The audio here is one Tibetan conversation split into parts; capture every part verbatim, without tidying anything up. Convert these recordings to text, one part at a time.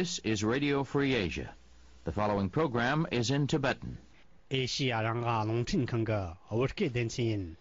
This is Radio Free Asia. The following program is in Tibetan. ཨེ་ཤི་ཡ་རང་དབང་རླུང་འཕྲིན་ཁང་གི་བོད་སྐད་སྡེ་ཚན་ཡིན།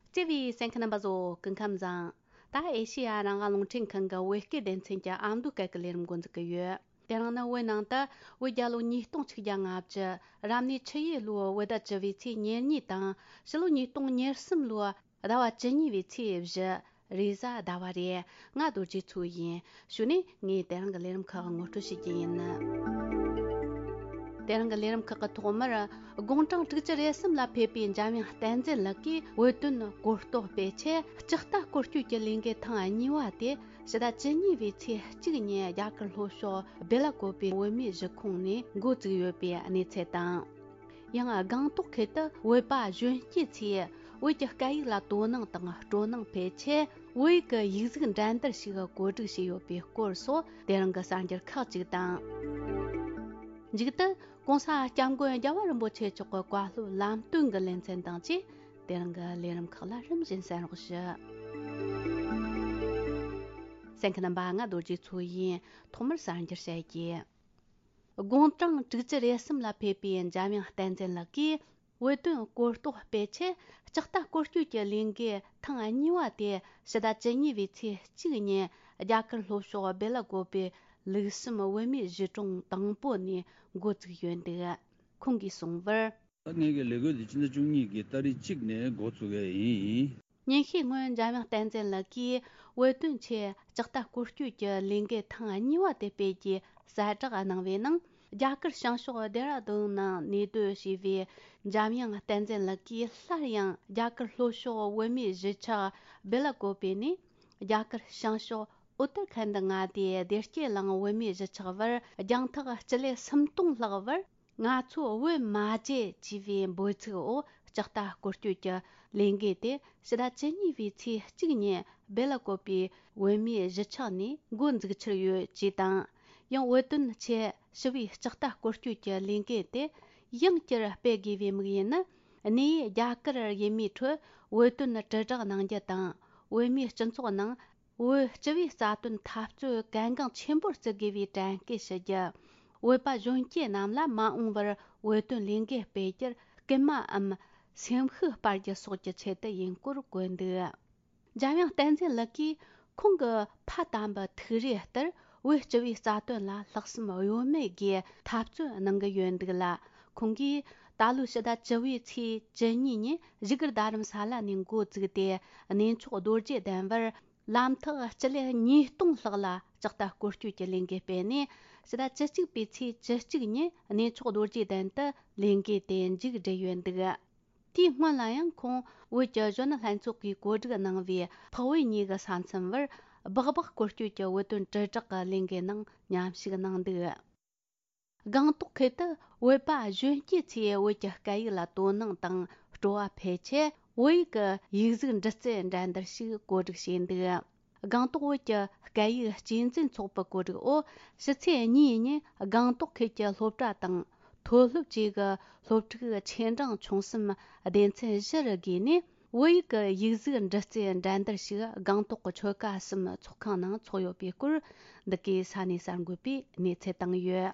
བརྩེ་བའི་གསན་མཁན་རྣམ་པ་ཚོ་སྐུ་ཁམས་བཟང་། ད་ཨེ་ཤི་ཡ་རང་དབང་རླུང་འཕྲིན་ཁང་གི་བོད་སྐད་སྡེ་ཚན་གྱི་ཨ་མདོའི་སྐད་ཀྱི་ལས་རིམ་འགོ་འཛུགས་ཀྱི་ཡོད། དེ་རིང་ནི་བོད་ནང་དུ་བོད་རྒྱལ་ལོ་ཉིས་སྟོང་ཆིག་བརྒྱ་ལྔ་བཅུ། རབ་གནས་ཆུ་ཡོས་ལོའི་བོད་ཟླ་བཅུ་བའི་ཚེས་ཉེར་གཉིས་དང་། ཕྱི་ལོ་ཉིས་སྟོང་ཉེར་གསུམ་ལོའི་ཟླ་བ་བཅུ་གཉིས་པའི་ཚེས་བཞི། རེས་གཟའ་ཟླ་བ་རེད། ང་རྡོ་རྗེ་མཚོ་ཡིན། གཞུག་ནས་ངས་དེ་རིང་གི་ལས་རིམ་ཁག་ངོ་སྤྲོད་བྱེད་ཀྱི་ཡིན། དེ་རིང་གི་ལས་རིམ་ཁག་གི་ཐོག་མར། དགུང་གྲངས་དྲུག་ཅུ་རེ་གསུམ་ལ་ཕེབས་པའི་འཇམ་དབྱངས་བསྟན་འཛིན་ལགས་ཀྱིས་བོད་དོན་གོ་རྟོགས་སྤེལ་ཆེད་ལྕགས་རྟ་བསྐོར་སྐྱོད་ཀྱི་ལས་འགུལ་ཐེངས་གཉིས་པ་དེ་ཕྱི་ཟླ་བཅུ་གཉིས་པའི་ཚེས་གཅིག་ཉིན་རྒྱ་གར་ལྷོ་ཕྱོགས་སྦེ་ལ་ཀོབ་པའི་བོད་མིའི་གཞིས་ཁོངས་ནས་འགོ་བཙུགས་ཡོད་པའི་གནས་ཚུལ་དང་། ཡང་སྒང་ཏོག་ཁུལ་དུ་བོད་པ་གཞོན་སྐྱེས་ཚོས་བོད་ཀྱི་སྐད་ཡིག་ལ་དོ་སྣང་དང་སྤྲོ་སྣང་འཕེལ་ཆེད་བོད་ཡིག་གི་ཡིག་གཟུགས་འགྲན་བསྡུར་ཞིག་གོ་སྒྲིག་བྱས་ཡོད་པའི་སྐོར་སོགས་དེ་རིང་གི་གསར་འགྱུར་ཁག་ཅིག་དང་། མཇུག་ཏུ་༸གོང་ས་༸སྐྱབས་མགོན་རྒྱལ་བ་རིན་པོ་ཆེ་མཆོག་གི་བཀའ་སློབ་ལམ་སྟོན་གྱི་ལེ་ཚན་དང་བཅས་དེ་རིང་གི་ལས་རིམ་ཁག་ལ་རིམ་བཞིན་གསན་རོགས་ཞུ། གསན་མཁན་རྣམ་པ། ང་རྡོ་རྗེ་མཚོ་ཡིན། ཐོག་མར་གསར་འགྱུར་བཤད་རྒྱུ། དགུང་གྲངས་དྲུག་ཅུ་རེ་གསུམ་ལ་ཕེབས་པའི་འཇམ་དབྱངས་བསྟན་འཛིན་ལགས་ཀྱིས་བོད་དོན་གོ་རྟོགས་སྤེལ་ཆེད་ལྕགས་རྟ་བསྐོར་སྐྱོད་ཀྱི་ལས་འགུལ་ཐེངས་གཉིས་པ་དེ་ཕྱི་ཟླ་བཅུ་གཉིས་པའི་ཚེས་གཅིག་ཉིན་རྒྱ་གར་ལྷོ་ཕྱོགས་སྦེ་ལ་ཀོབ་པའི་ལུགས་བསམ་བོད་མིའི་གཞིས་གྲོང་དང་པོ་ནས་འགོ་བཙུགས་ཡོད་འདུག། ཁོང་གིས་གསུངས་པར། ངེད་ཀྱི་ལས་འགུལ་འདི་ཕྱི་ཟླ་བཅུ་གཉིས་ཀྱི་ཏ་རིག་གཅིག་ནས་འགོ་བཙུགས་ཡས་ཡིན། ཉིན་ཤས་སྔོན་འཇམ་དབྱངས་བསྟན་འཛིན་ལགས་ཀྱིས་བོད་དོན་ཆེད་ལྕགས་རྟ་སྐོར་སྐྱོད་ཀྱི་ལས་འགུལ་ཐེངས་གཉིས་པ་དེ་སྤེལ་རྒྱུའི་གསལ་བསྒྲགས་གནང་བའི་ནང་། རྒྱ་གར་བྱང་ཕྱོགས་ལྡེ་ར་ལྡུན་ནང་གནས་སྡོད་བྱས་པའི་འཇམ་དབྱངས་བསྟན་འཛིན་ལགས་ཀྱིས་སླར་ཡང་རྒྱ་གར་ལྷོ་ཕྱོགས་བོད་མིའི་གཞིས་ཆགས་སྦེ་ལ་ཀོབ་པེ་ནས་རྒྱ་གར་བྱང་ཕྱོགས་ཨུ་ཏར་ཁན་ཌི་མངའ་སྡེའི་བདེ་སྐྱིད་གླིང་བོད་མིའི་གཞིས་ཆགས་བར་རྒྱང་ཐག་སྤྱི་ལེ་སུམ་སྟོང་ལྷག་བར། ང་ཚོ་བོད་མ་བརྗེད་ཅེས་པའི་འབོད་ཚིག་འོག་ལྕགས་རྟ་སྐོར་སྐྱོད་ཀྱི་ལས་འགུལ་དེ་ཕྱི་ཟླ་བཅུ་གཉིས་པའི་ཚེས་གཅིག་ཉིན་སྦེ་ལ་ཀོབ་པའི་བོད་མིའི་གཞིས་ཆགས་ནས་འགོ་འཛུགས་འཆར་ཡོད་ཅེས་དང་། ཡང་བོད་དོན་ཆེད་ཞི་བའི་ལྕགས་རྟ་སྐོར་སྐྱོད་ཀྱི་ལས་འགུལ་དེ་ཡང་བསྐྱར་སྤེལ་དགོས་པའི་དམིགས་ཡུལ་ནི། གནས་ཡུལ་རྒྱ་གར་ཡུལ་མིའི་ཁྲོད་བོད་དོན་དྲིལ་བསྒྲགས་གནང་རྒྱུ་དང་། བོད་མིའི་སྤྱི་ཚོགས་ནང་། བོད་སྤྱི་པའི་རྩ་དོན་འཐབ་རྩོད་གལ་འགངས་ཆེན་པོར་བརྩི་དགོས་པའི་དྲན་སྐུལ་ཞུ་རྒྱུ། བོད་པ་གཞོན་སྐྱེས་རྣམས་ལ་མ་འོངས་པར་བོད་དོན་ལས་འགུལ་སྤེལ་རྒྱུར་སྐུལ་མའམ་སེམས་ཤུགས་སྤར་རྒྱུ་སོགས་ཀྱི་ཆེད་དུ་ཡིན་སྐོར་བཀོད་འདུག། འཇམ་དབྱངས་བསྟན་འཛིན་ལགས་ཀྱིས་ཁོང་གི་ཕ་དམ་པའི་ཐུགས་རེ་ལྟར་བོད་སྤྱི་པའི་རྩ་དོན་ལ་ལྷག་བསམ་གཡོ་མེད་སྒོས་འཐབ་རྩོད་གནང་གི་ཡོད་འདུག་ལ། ཁོང་གིས་ད་ལོའི་ཕྱི་ཟླ་བཅུ་བའི་ཚེས་བཅུ་གཉིས་ཉིན་བཞུགས་སྒར་རྡ་རམ་ས་ལ་ནས་འགོ་བཙུགས་ཏེ། གནས་མཆོག་རྡོ་རྗེ་གདན་བར་ལམ་ཐག་སྤྱི་ལེ་ཉིས་སྟོང་ལྷག་ལ་ལྕགས་རྟ་སྐོར་སྐྱོད་ཀྱི་ལས་འགུལ་སྤེལ་ནས། ཕྱི་ཟླ་བཅུ་གཅིག་པའི་ཚེས་བཅུ་གཅིག་ཉིན་གནས་མཆོག་རྡོ་རྗེ་གདན་དུ་ལས་འགུལ་དེ་མཇུག་བསྒྲིལ་ཡོད་འདུག། དེའི་སྔོན་ལ་ཡང་ཁོང་བོད་ཀྱི་གཞོན་ནུ་ལྷན་ཚོགས་ཀྱིས་གོ་སྒྲིག་གནང་བའི་འཕགས་བོད་གཉིས་ཀྱི་ས་མཚམས་བར་སྦག་སྦག་སྐོར་སྐྱོད་ཀྱི་བོད་དོན་དྲིལ་བསྒྲགས་ཀྱི་ལས་འགུལ་ནང་མཉམ་ཞུགས་གནང་འདུག། སྒང་ཏོག་ཁུལ་དུ་བོད་པ་གཞོན་སྐྱེས་ཚོས་བོད་ཀྱི་སྐད་ཡིག་ལ་དོ་སྣང་དང་སྤྲོ་བ་འཕེལ་ཆེད། བོད་ཡིག་གི་ཡིག་གཟུགས་འབྲི་རྩལ་འགྲན་བསྡུར་ཞིག་གོ་སྒྲིག་བྱས་འདུག། སྒང་ཏོག་བོད་ཀྱི་སྐད་ཡིག་གཅེས་འཛིན་ཚོགས་པའི་གོ་སྒྲིག་འོག་ཕྱི་ཚེས་གཉིས་ཉིན་སྒང་ཏོག་ཁུལ་གྱི་སློབ་གྲྭ་དང་མཐོ་སློབ་བཅས་ཀྱི་སློབ་ཕྲུག་ཆེ་འབྲིང་ཆུང་གསུམ་སྡེ་ཚན་བཞི་རུ་བགོས་ནས། བོད་ཡིག་གི་ཡིག་གཟུགས་འབྲི་རྩལ་འགྲན་བསྡུར་ཞིག་སྒང་ཏོག་གི་ཆོལ་ཁ་གསུམ་ཚོགས་ཁང་ནང་འཚོགས་ཡོད་པའི་སྐོར། འདི་གའི་ས་གནས་གསར་འགོད་པས་གནས་ཚུལ་བཏང་ཡོད།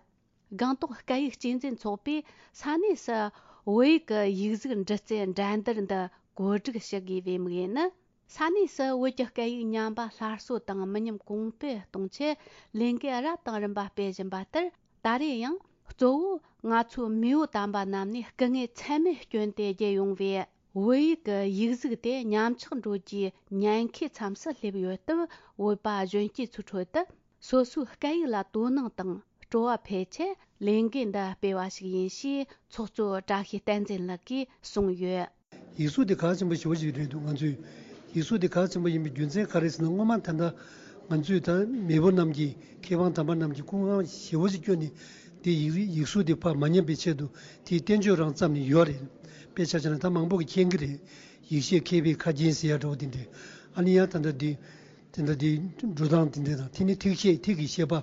སྒང་ཏོག་སྐད་ཡིག་གཅེས་འཛིན་ཚོགས་པས་ས་གནས་སུ་བོད་ཡིག་གི་ཡིག་གཟུགས་འབྲི་རྩལ་འགྲན་བསྡུར་འདི་གོ་སྒྲིག་ཞུ་དགོས་པའི་དམིགས་ཡུལ་ནི། ས་གནས་སུ་བོད་ཀྱི་སྐད་ཡིག་ཉམས་པ་སླར་གསོ་དང་མི་ཉམས་གོང་འཕེལ་གཏོང་ཆེད་ལས་འགུལ་རབ་དང་རིམ་པ་སྤེལ་བཞིན་པ་ལྟར། ད་རེས་ཡང་གཙོ་བོ་ང་ཚོའི་མེས་པོ་དམ་པ་རྣམས་ནས་སྐུ་ངལ་ཚད་མེད་བསྐྱོན་ཏེ་བརྒྱུད་ཡོང་བའི་བོད་ཡིག་གི་ཡིག་གཟུགས་དེ་ཉམས་ཆག་འགྲོ་རྒྱུའི་ཉེན་ཁའི་མཚམས་སུ་སླེབས་ཡོད་སྟབས། བོད་པ་གཞོན་སྐྱེས་ཚོའི་ཁྲོད་དུ་སོ་སོའི་སྐད་ཡིག་ལ་དོ་སྣང་དང་སྤྲོ་བ་འཕེལ་ཆེད་ལས་འགུལ་འདི་སྤེལ་བ་ཞིག་ཡིན་ཞེས་ཚོགས་གཙོ་བཀྲ་ཤིས་བསྟན་འཛིན་ལགས་ཀྱིས་གསུངས་ཡོད། ཡིག་གཟུགས་དེ་གལ་ཆེན་པོ་ཞེ་པོ་ཞིག་རེད་འདུག། ང་ཚོས་ཡིག་གཟུགས་དེ་གལ་ཆེན་པོ་ཡིན་པའི་རྒྱུ་མཚན་ག་རེ་ཟེར་ན། སྔོན་མ་ད་ལྟ་ང་ཚོས་ད་མེས་པོ་རྣམས་ཀྱིས། མཁས་དབང་དམ་པ་རྣམས་ཀྱིས་སྐུ་ངལ་ཞེ་པོ་ཞིག་བསྐྱོན་ནས། དེ་ཡིག་ཡིག་གཟུགས་དེ་ཕར་མ་ཉམས་པའི་ཆེད་དུ་དེའི་བསྟན་བཅོས་རང་བརྩམས་ནས་ཡོད་རེད། དཔེ་ཆ་བཞག་ན་ད་མང་པོ་གིས་མཁྱེན་གྱི་རེད། ཡེ་ཤེས་མཁས་པའི་ཁ་རྒྱན་ཟེར་ཡ་འདྲ་བོ་དེ་འདྲས། ཨ་ནི་ཡང་ད་ལྟ་དེ་དེ་འདྲ་དེ་འགྲོ་སྟངས་དེ་འདྲས་དང་། དེ་ནི་ཐིག་ཤེས་ཐིག་གི་ཤེས་པ།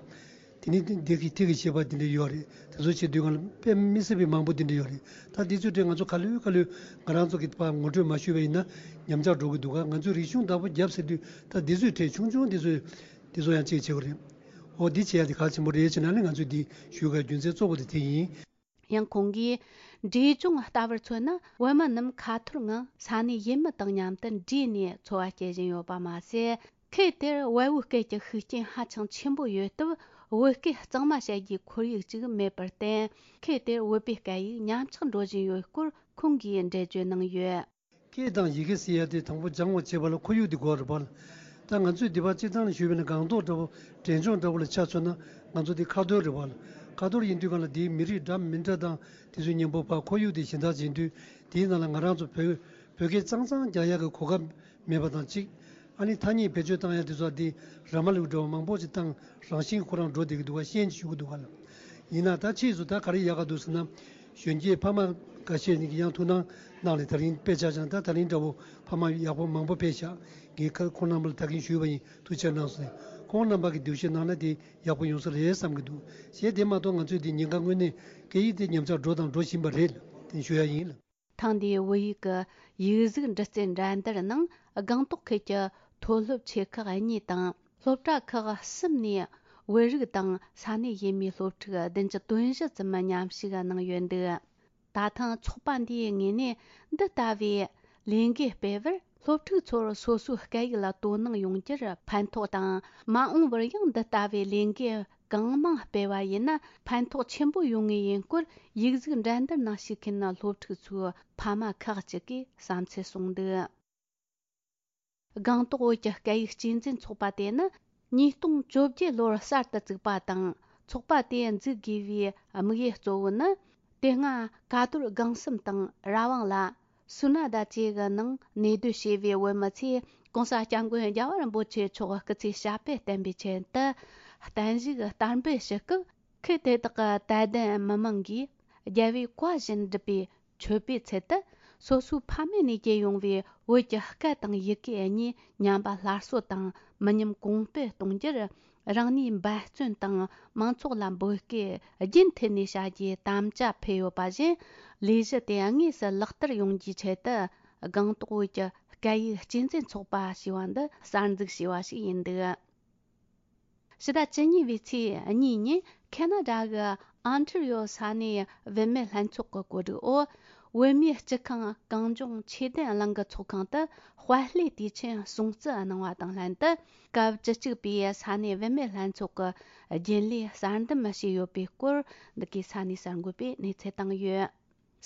དེ་ནི་འདི་གི་ཐིག་གི་བྱེད་པ་དེ་འདྲ་ཡོད་རེད། དེ་ཚོ་བྱེད་དུས་སྒང་ལ་དཔེ་མི་སྲིད་པའི་མང་པོ་དེ་འདྲ་ཡོད་རེད། ད་དེ་ཚོའི་གྲས་ང་ཚོ་ག་ལེར་ག་ལེར་ང་རང་ཚོ་གི་ཕར་ངོ་སྤྲོད་མ་ཞུས་པ་ཡིན་ན་ཉམས་ཆག་འགྲོ་གི་འདུག་ག་ང་ཚོས་རིག་གཞུང་བདག་པོ་རྒྱབ་ཟེར་དུས་ད་དེ་ཚོའི་གྲས་ཆུང་ཆུང་དེ་ཚོས་དེ་ཚོ་ཡང་གཅིག་བྱེད་དགོས་རེད། འོ་འདི་བྱེད་ཡ་དེ་གལ་ཆེན་པོ་རེད་བྱས་ན་ནི་ང་ཚོས་འདི་ཞུ་དགོས་རྒྱུ་མཚན་གཙོ་བོ་དེ་དེ་ཡིན། ཡང་ཁོང་གིས་འབྲས་ལྗོངས་ལྟ་བུར་མཚོན་ན་བོད་མི་རྣམས་ཁ་ཐོར་ངང་ས་གནས་ཡུལ་མི་དང་མཉམ་དུ་འདྲེས་ནས་འཚོ་བ་སྐྱེལ་བཞིན་ཡོད་པ་མ་ཟད། ཁུལ་དེར་བལ་བོའི་སྐད་ཀྱི་ཤུགས་རྐྱེན་ཧ་ཅང་ཆེན་པོ་ཡོད་སྟབས། བོད་སྐད་གཙང་མ་བཤད་རྒྱུའི་ཁོར་ཡུག་ཅིག་མེད་པར་བརྟེན། ཁུལ་དེར་བོད་པའི་སྐད་ཡིག་ཉམས་ཆག་འགྲོ་བཞིན་ཡོད་སྐོར་ཁོང་གིས་འགྲེལ་བརྗོད་གནང་ཡོད། སྐད་དང་ཡི་གེ་ཟེར་ཡ་དེ་དང་པོ་སྦྱང་བ་བྱེད་པ་ལ་ཁོར་ཡུག་དེ་དགོས་རེད་པ། ད་ང་ཚོས་འདི་པར་སྤྱིར་བཏང་ནས་ཞུས་པ་ཡིན་ན་སྒང་ཏོག་འདྲ་པོ་འབྲས་ལྗོངས་འདྲ་པོ་ལ་ཆ་མཚོན་ན་ང་ཚོ་འདི་ཁ་ཐོར་རེད་པ། ཁ་ཐོར་ཡིན་དུས་སྒང་ལ་འདིའི་མི་རིགས་འདྲ་མི་འདྲ་དང་དེ་ཚོའི་མཉམ་པོ་ཕར་ཁོར་ཡུག་དེ་གཞན་དག་ཡིན་དུས། དེའི་ནང་ལ་ང་རང་ཚོ་བོད་བོད་སྐད་གཙང་གཙང་རྒྱག་ཡག་གི་གོ་སྐབས་མེད་པ་དང་གཅིག་ཨ་ནི་ཐ་སྙད་བེད་སྤྱོད་བཏང་ཡ་དེ་ཚོ་འདི་ར་མ་ལུག་འདྲ་བ་མང་པོ་ཞིག་བཏང་རང་བཞིན་ཁོ་རང་འགྲོ་བསྡད་ཀྱི་འདུག་ག་ཤེས་ཀྱི་ཞུ་གི་འདུག་ག་ལ། ཡིན་ན་ད་ཕྱིས་སུ་ད་ག་རེ་ཡག་ག་འདུག་ཟེར་ན། གཞོན་སྐྱེས་ཕ་མ་འགའ་ཤས་ནས་ཀྱི་ཡང་ཐུགས་སྣང་གནང་ལས་ད་རིང་དཔེ་ཆ་ཅང་ད་ད་རིང་འདྲ་བོ་ཕ་མ་ཡག་པོ་མང་པོ་ཕེབས་ཤག་ངས་ཁ་ཁོང་རྣམ་པ་ལ་ད་གིན་ཞུས་པ་ཡིན། ཐུགས་ཆེ་གནང་སོང་། ཁོང་རྣམ་པ་གི་འདུ་ཤེས་གནང་ན་དེ་ཡག་པོ་ཡོང་ས་རེད་བསམ་གྱི་འདུག་ཞེས་དེ་མ་གཏོགས་ང་ཚོས་དེ་ཉེན་ཁ་དངོས་གནས་སྐད་ཡིག་དེ་ཉམས་ཆག་འགྲོ་དང་འགྲོ་བཞིན་པ་རེད་ལ་དེ་ཞུ་ཡ་ཡིན་ལ། ཐེངས་འདིའི་བོད་ཡིག་གི་ཡིག་གཟུགས་འདྲི་རྩད་འགྲན་བསྡུར་ནང་སྒང་ཏོག་ཁུལ་གྱི་མཐོ་སློབ་ཆེ་ཁག་གཉིས་དང་སློབ་གྲྭ་ཁག་གསུམ་ནས་བོད་རིགས་དང་ས་གནས་ཡུལ་མིའི་སློབ་ཕྲུག་བདུན་ཅུ་དོན་བཞི་ཙམ་མཉམ་ཞུགས་གནང་ཡོད་འདུག་ད་ཐེངས་ཚོགས་པ་འདིའི་ངོས་ནས་འདི་ལྟ་བུའི་ལས་འགུལ་སྤེལ་བར་སློབ་ཕྲུག་ཚོར་སོ་སོའི་སྐད་ཡིག་ལ་དོ་སྣང་ཡོང་རྒྱུར་ཕན་ཐོགས་དང་། མ་འོངས་པར་ཡང་འདི་ལྟ་བུའི་ལས་འགུལ་གང་མང་སྤེལ་བ་ཡིན་ན་ཕན་ཐོགས་ཆེན་པོ་ཡོང་ངེས་ཡིན་སྐོར་ཡིག་གཟུགས་འགྲན་བསྡུར་ནང་ཞུགས་མཁན་སློབ་ཕྲུག་ཚོའི་ཕ་མ་ཁག་ཅིག་གིས་བསམ་ཚུལ་གསུངས་འདུག་སྒང་ཏོག་བོད་ཀྱི་སྐད་ཡིག་གཅེས་འཛིན་ཚོགས་པ་དེ་ནི་ཉིས་སྟོང་བཅོ་བརྒྱད་ལོར་གསར་དུ་བཙུགས་པ་དང་། ཚོགས་པ་དེ་འཛུགས་དགོས་པའི་དམིགས་ཡུལ་གཙོ་བོ་ནི། དེ་སྔ་ཀ་རྡོར་སྒང་གསུམ་དང་ར་བང་ལ། སུ་ན་ད་བཅས་ཀྱི་ནང་གནས་སྡོད་བྱས་པའི་བོད་མི་ཚོས་༸གོང་ས་༸སྐྱབས་མགོན་རྒྱལ་བ་རིན་པོ་ཆེ་མཆོག་སྐུ་ཚེ་ཞབས་པད་བརྟན་པའི་ཆེད་དུ་བརྟན་བཞུགས་བསྟར་འབུལ་ཞུ་སྐབས། ཁུལ་དེ་དག་གི་དད་ལྡན་མི་མང་གིས་རྒྱལ་བའི་བཀའ་བཞིན་བསྒྲུབས་པའི་མཆོད་པའི་ཚུལ་དུ། སོ་སོའི་ཕ་མེས་ནས་སྐྱེས་ཡོང་བའི་བོད་ཀྱི་སྐད་དང་ཡི་གེ་གཉིས་ཉམས་པ་སླར་གསོ་དང་མི་ཉམས་གོང་སྤེལ་གཏོང་རྒྱུར། རང་ནུས་འབད་བརྩོན་དང་མང་ཚོགས་ལ་འབོད་སྐུལ་རྒྱུན་མཐུད་ནས་བྱ་རྒྱུའི་དམ་བཅའ་ཕུལ་ཡོད་པ་བཞིན། ལས་གཞི་དེ་དངོས་སུ་ལག་བསྟར་ཡོང་རྒྱུའི་ཆེད་དུ། སྒང་ཏོག་བོད་ཀྱི་སྐད་ཡིག་གཅེས་འཛིན་ཚོགས་པ་ཞེས་པ་འདི་གསར་འཛུགས་བྱས་པ་ཞིག་ཡིན་འདུག་ཕྱི་ཟླ་བཅུ་གཉིས་པའི་ཚེས་གཉིས་ཉིན་ཁེ་ན་ཌ་གི་ཨོན་ཊ་རི་ཡོ་ས་གནས་བུད་མེད་ལྷན་ཚོགས་ཀྱི་གོ་སྒྲིག་འོག་བོད་མིའི་སྤྱི་ཁང་གངས་ལྗོངས་ཆོས་ལྡན་གླིང་གི་ཚོགས་ཁང་དུ་དཔལ་ལྷའི་དུས་ཆེན་སྲུང་བརྩི་གནང་བ་དང་ལྷན་དུ། སྐབས་བཅུ་གཅིག་པའི་ས་གནས་བུད་མེད་ལྷན་ཚོགས་ཀྱི་རྒྱུན་ལས་གསར་འདེམས་བྱས་ཡོད་པའི་སྐོར་འདི་གའི་ས་གནས་གསར་འགོད་པས་གནས་ཚུལ་བཏང་ཡོད།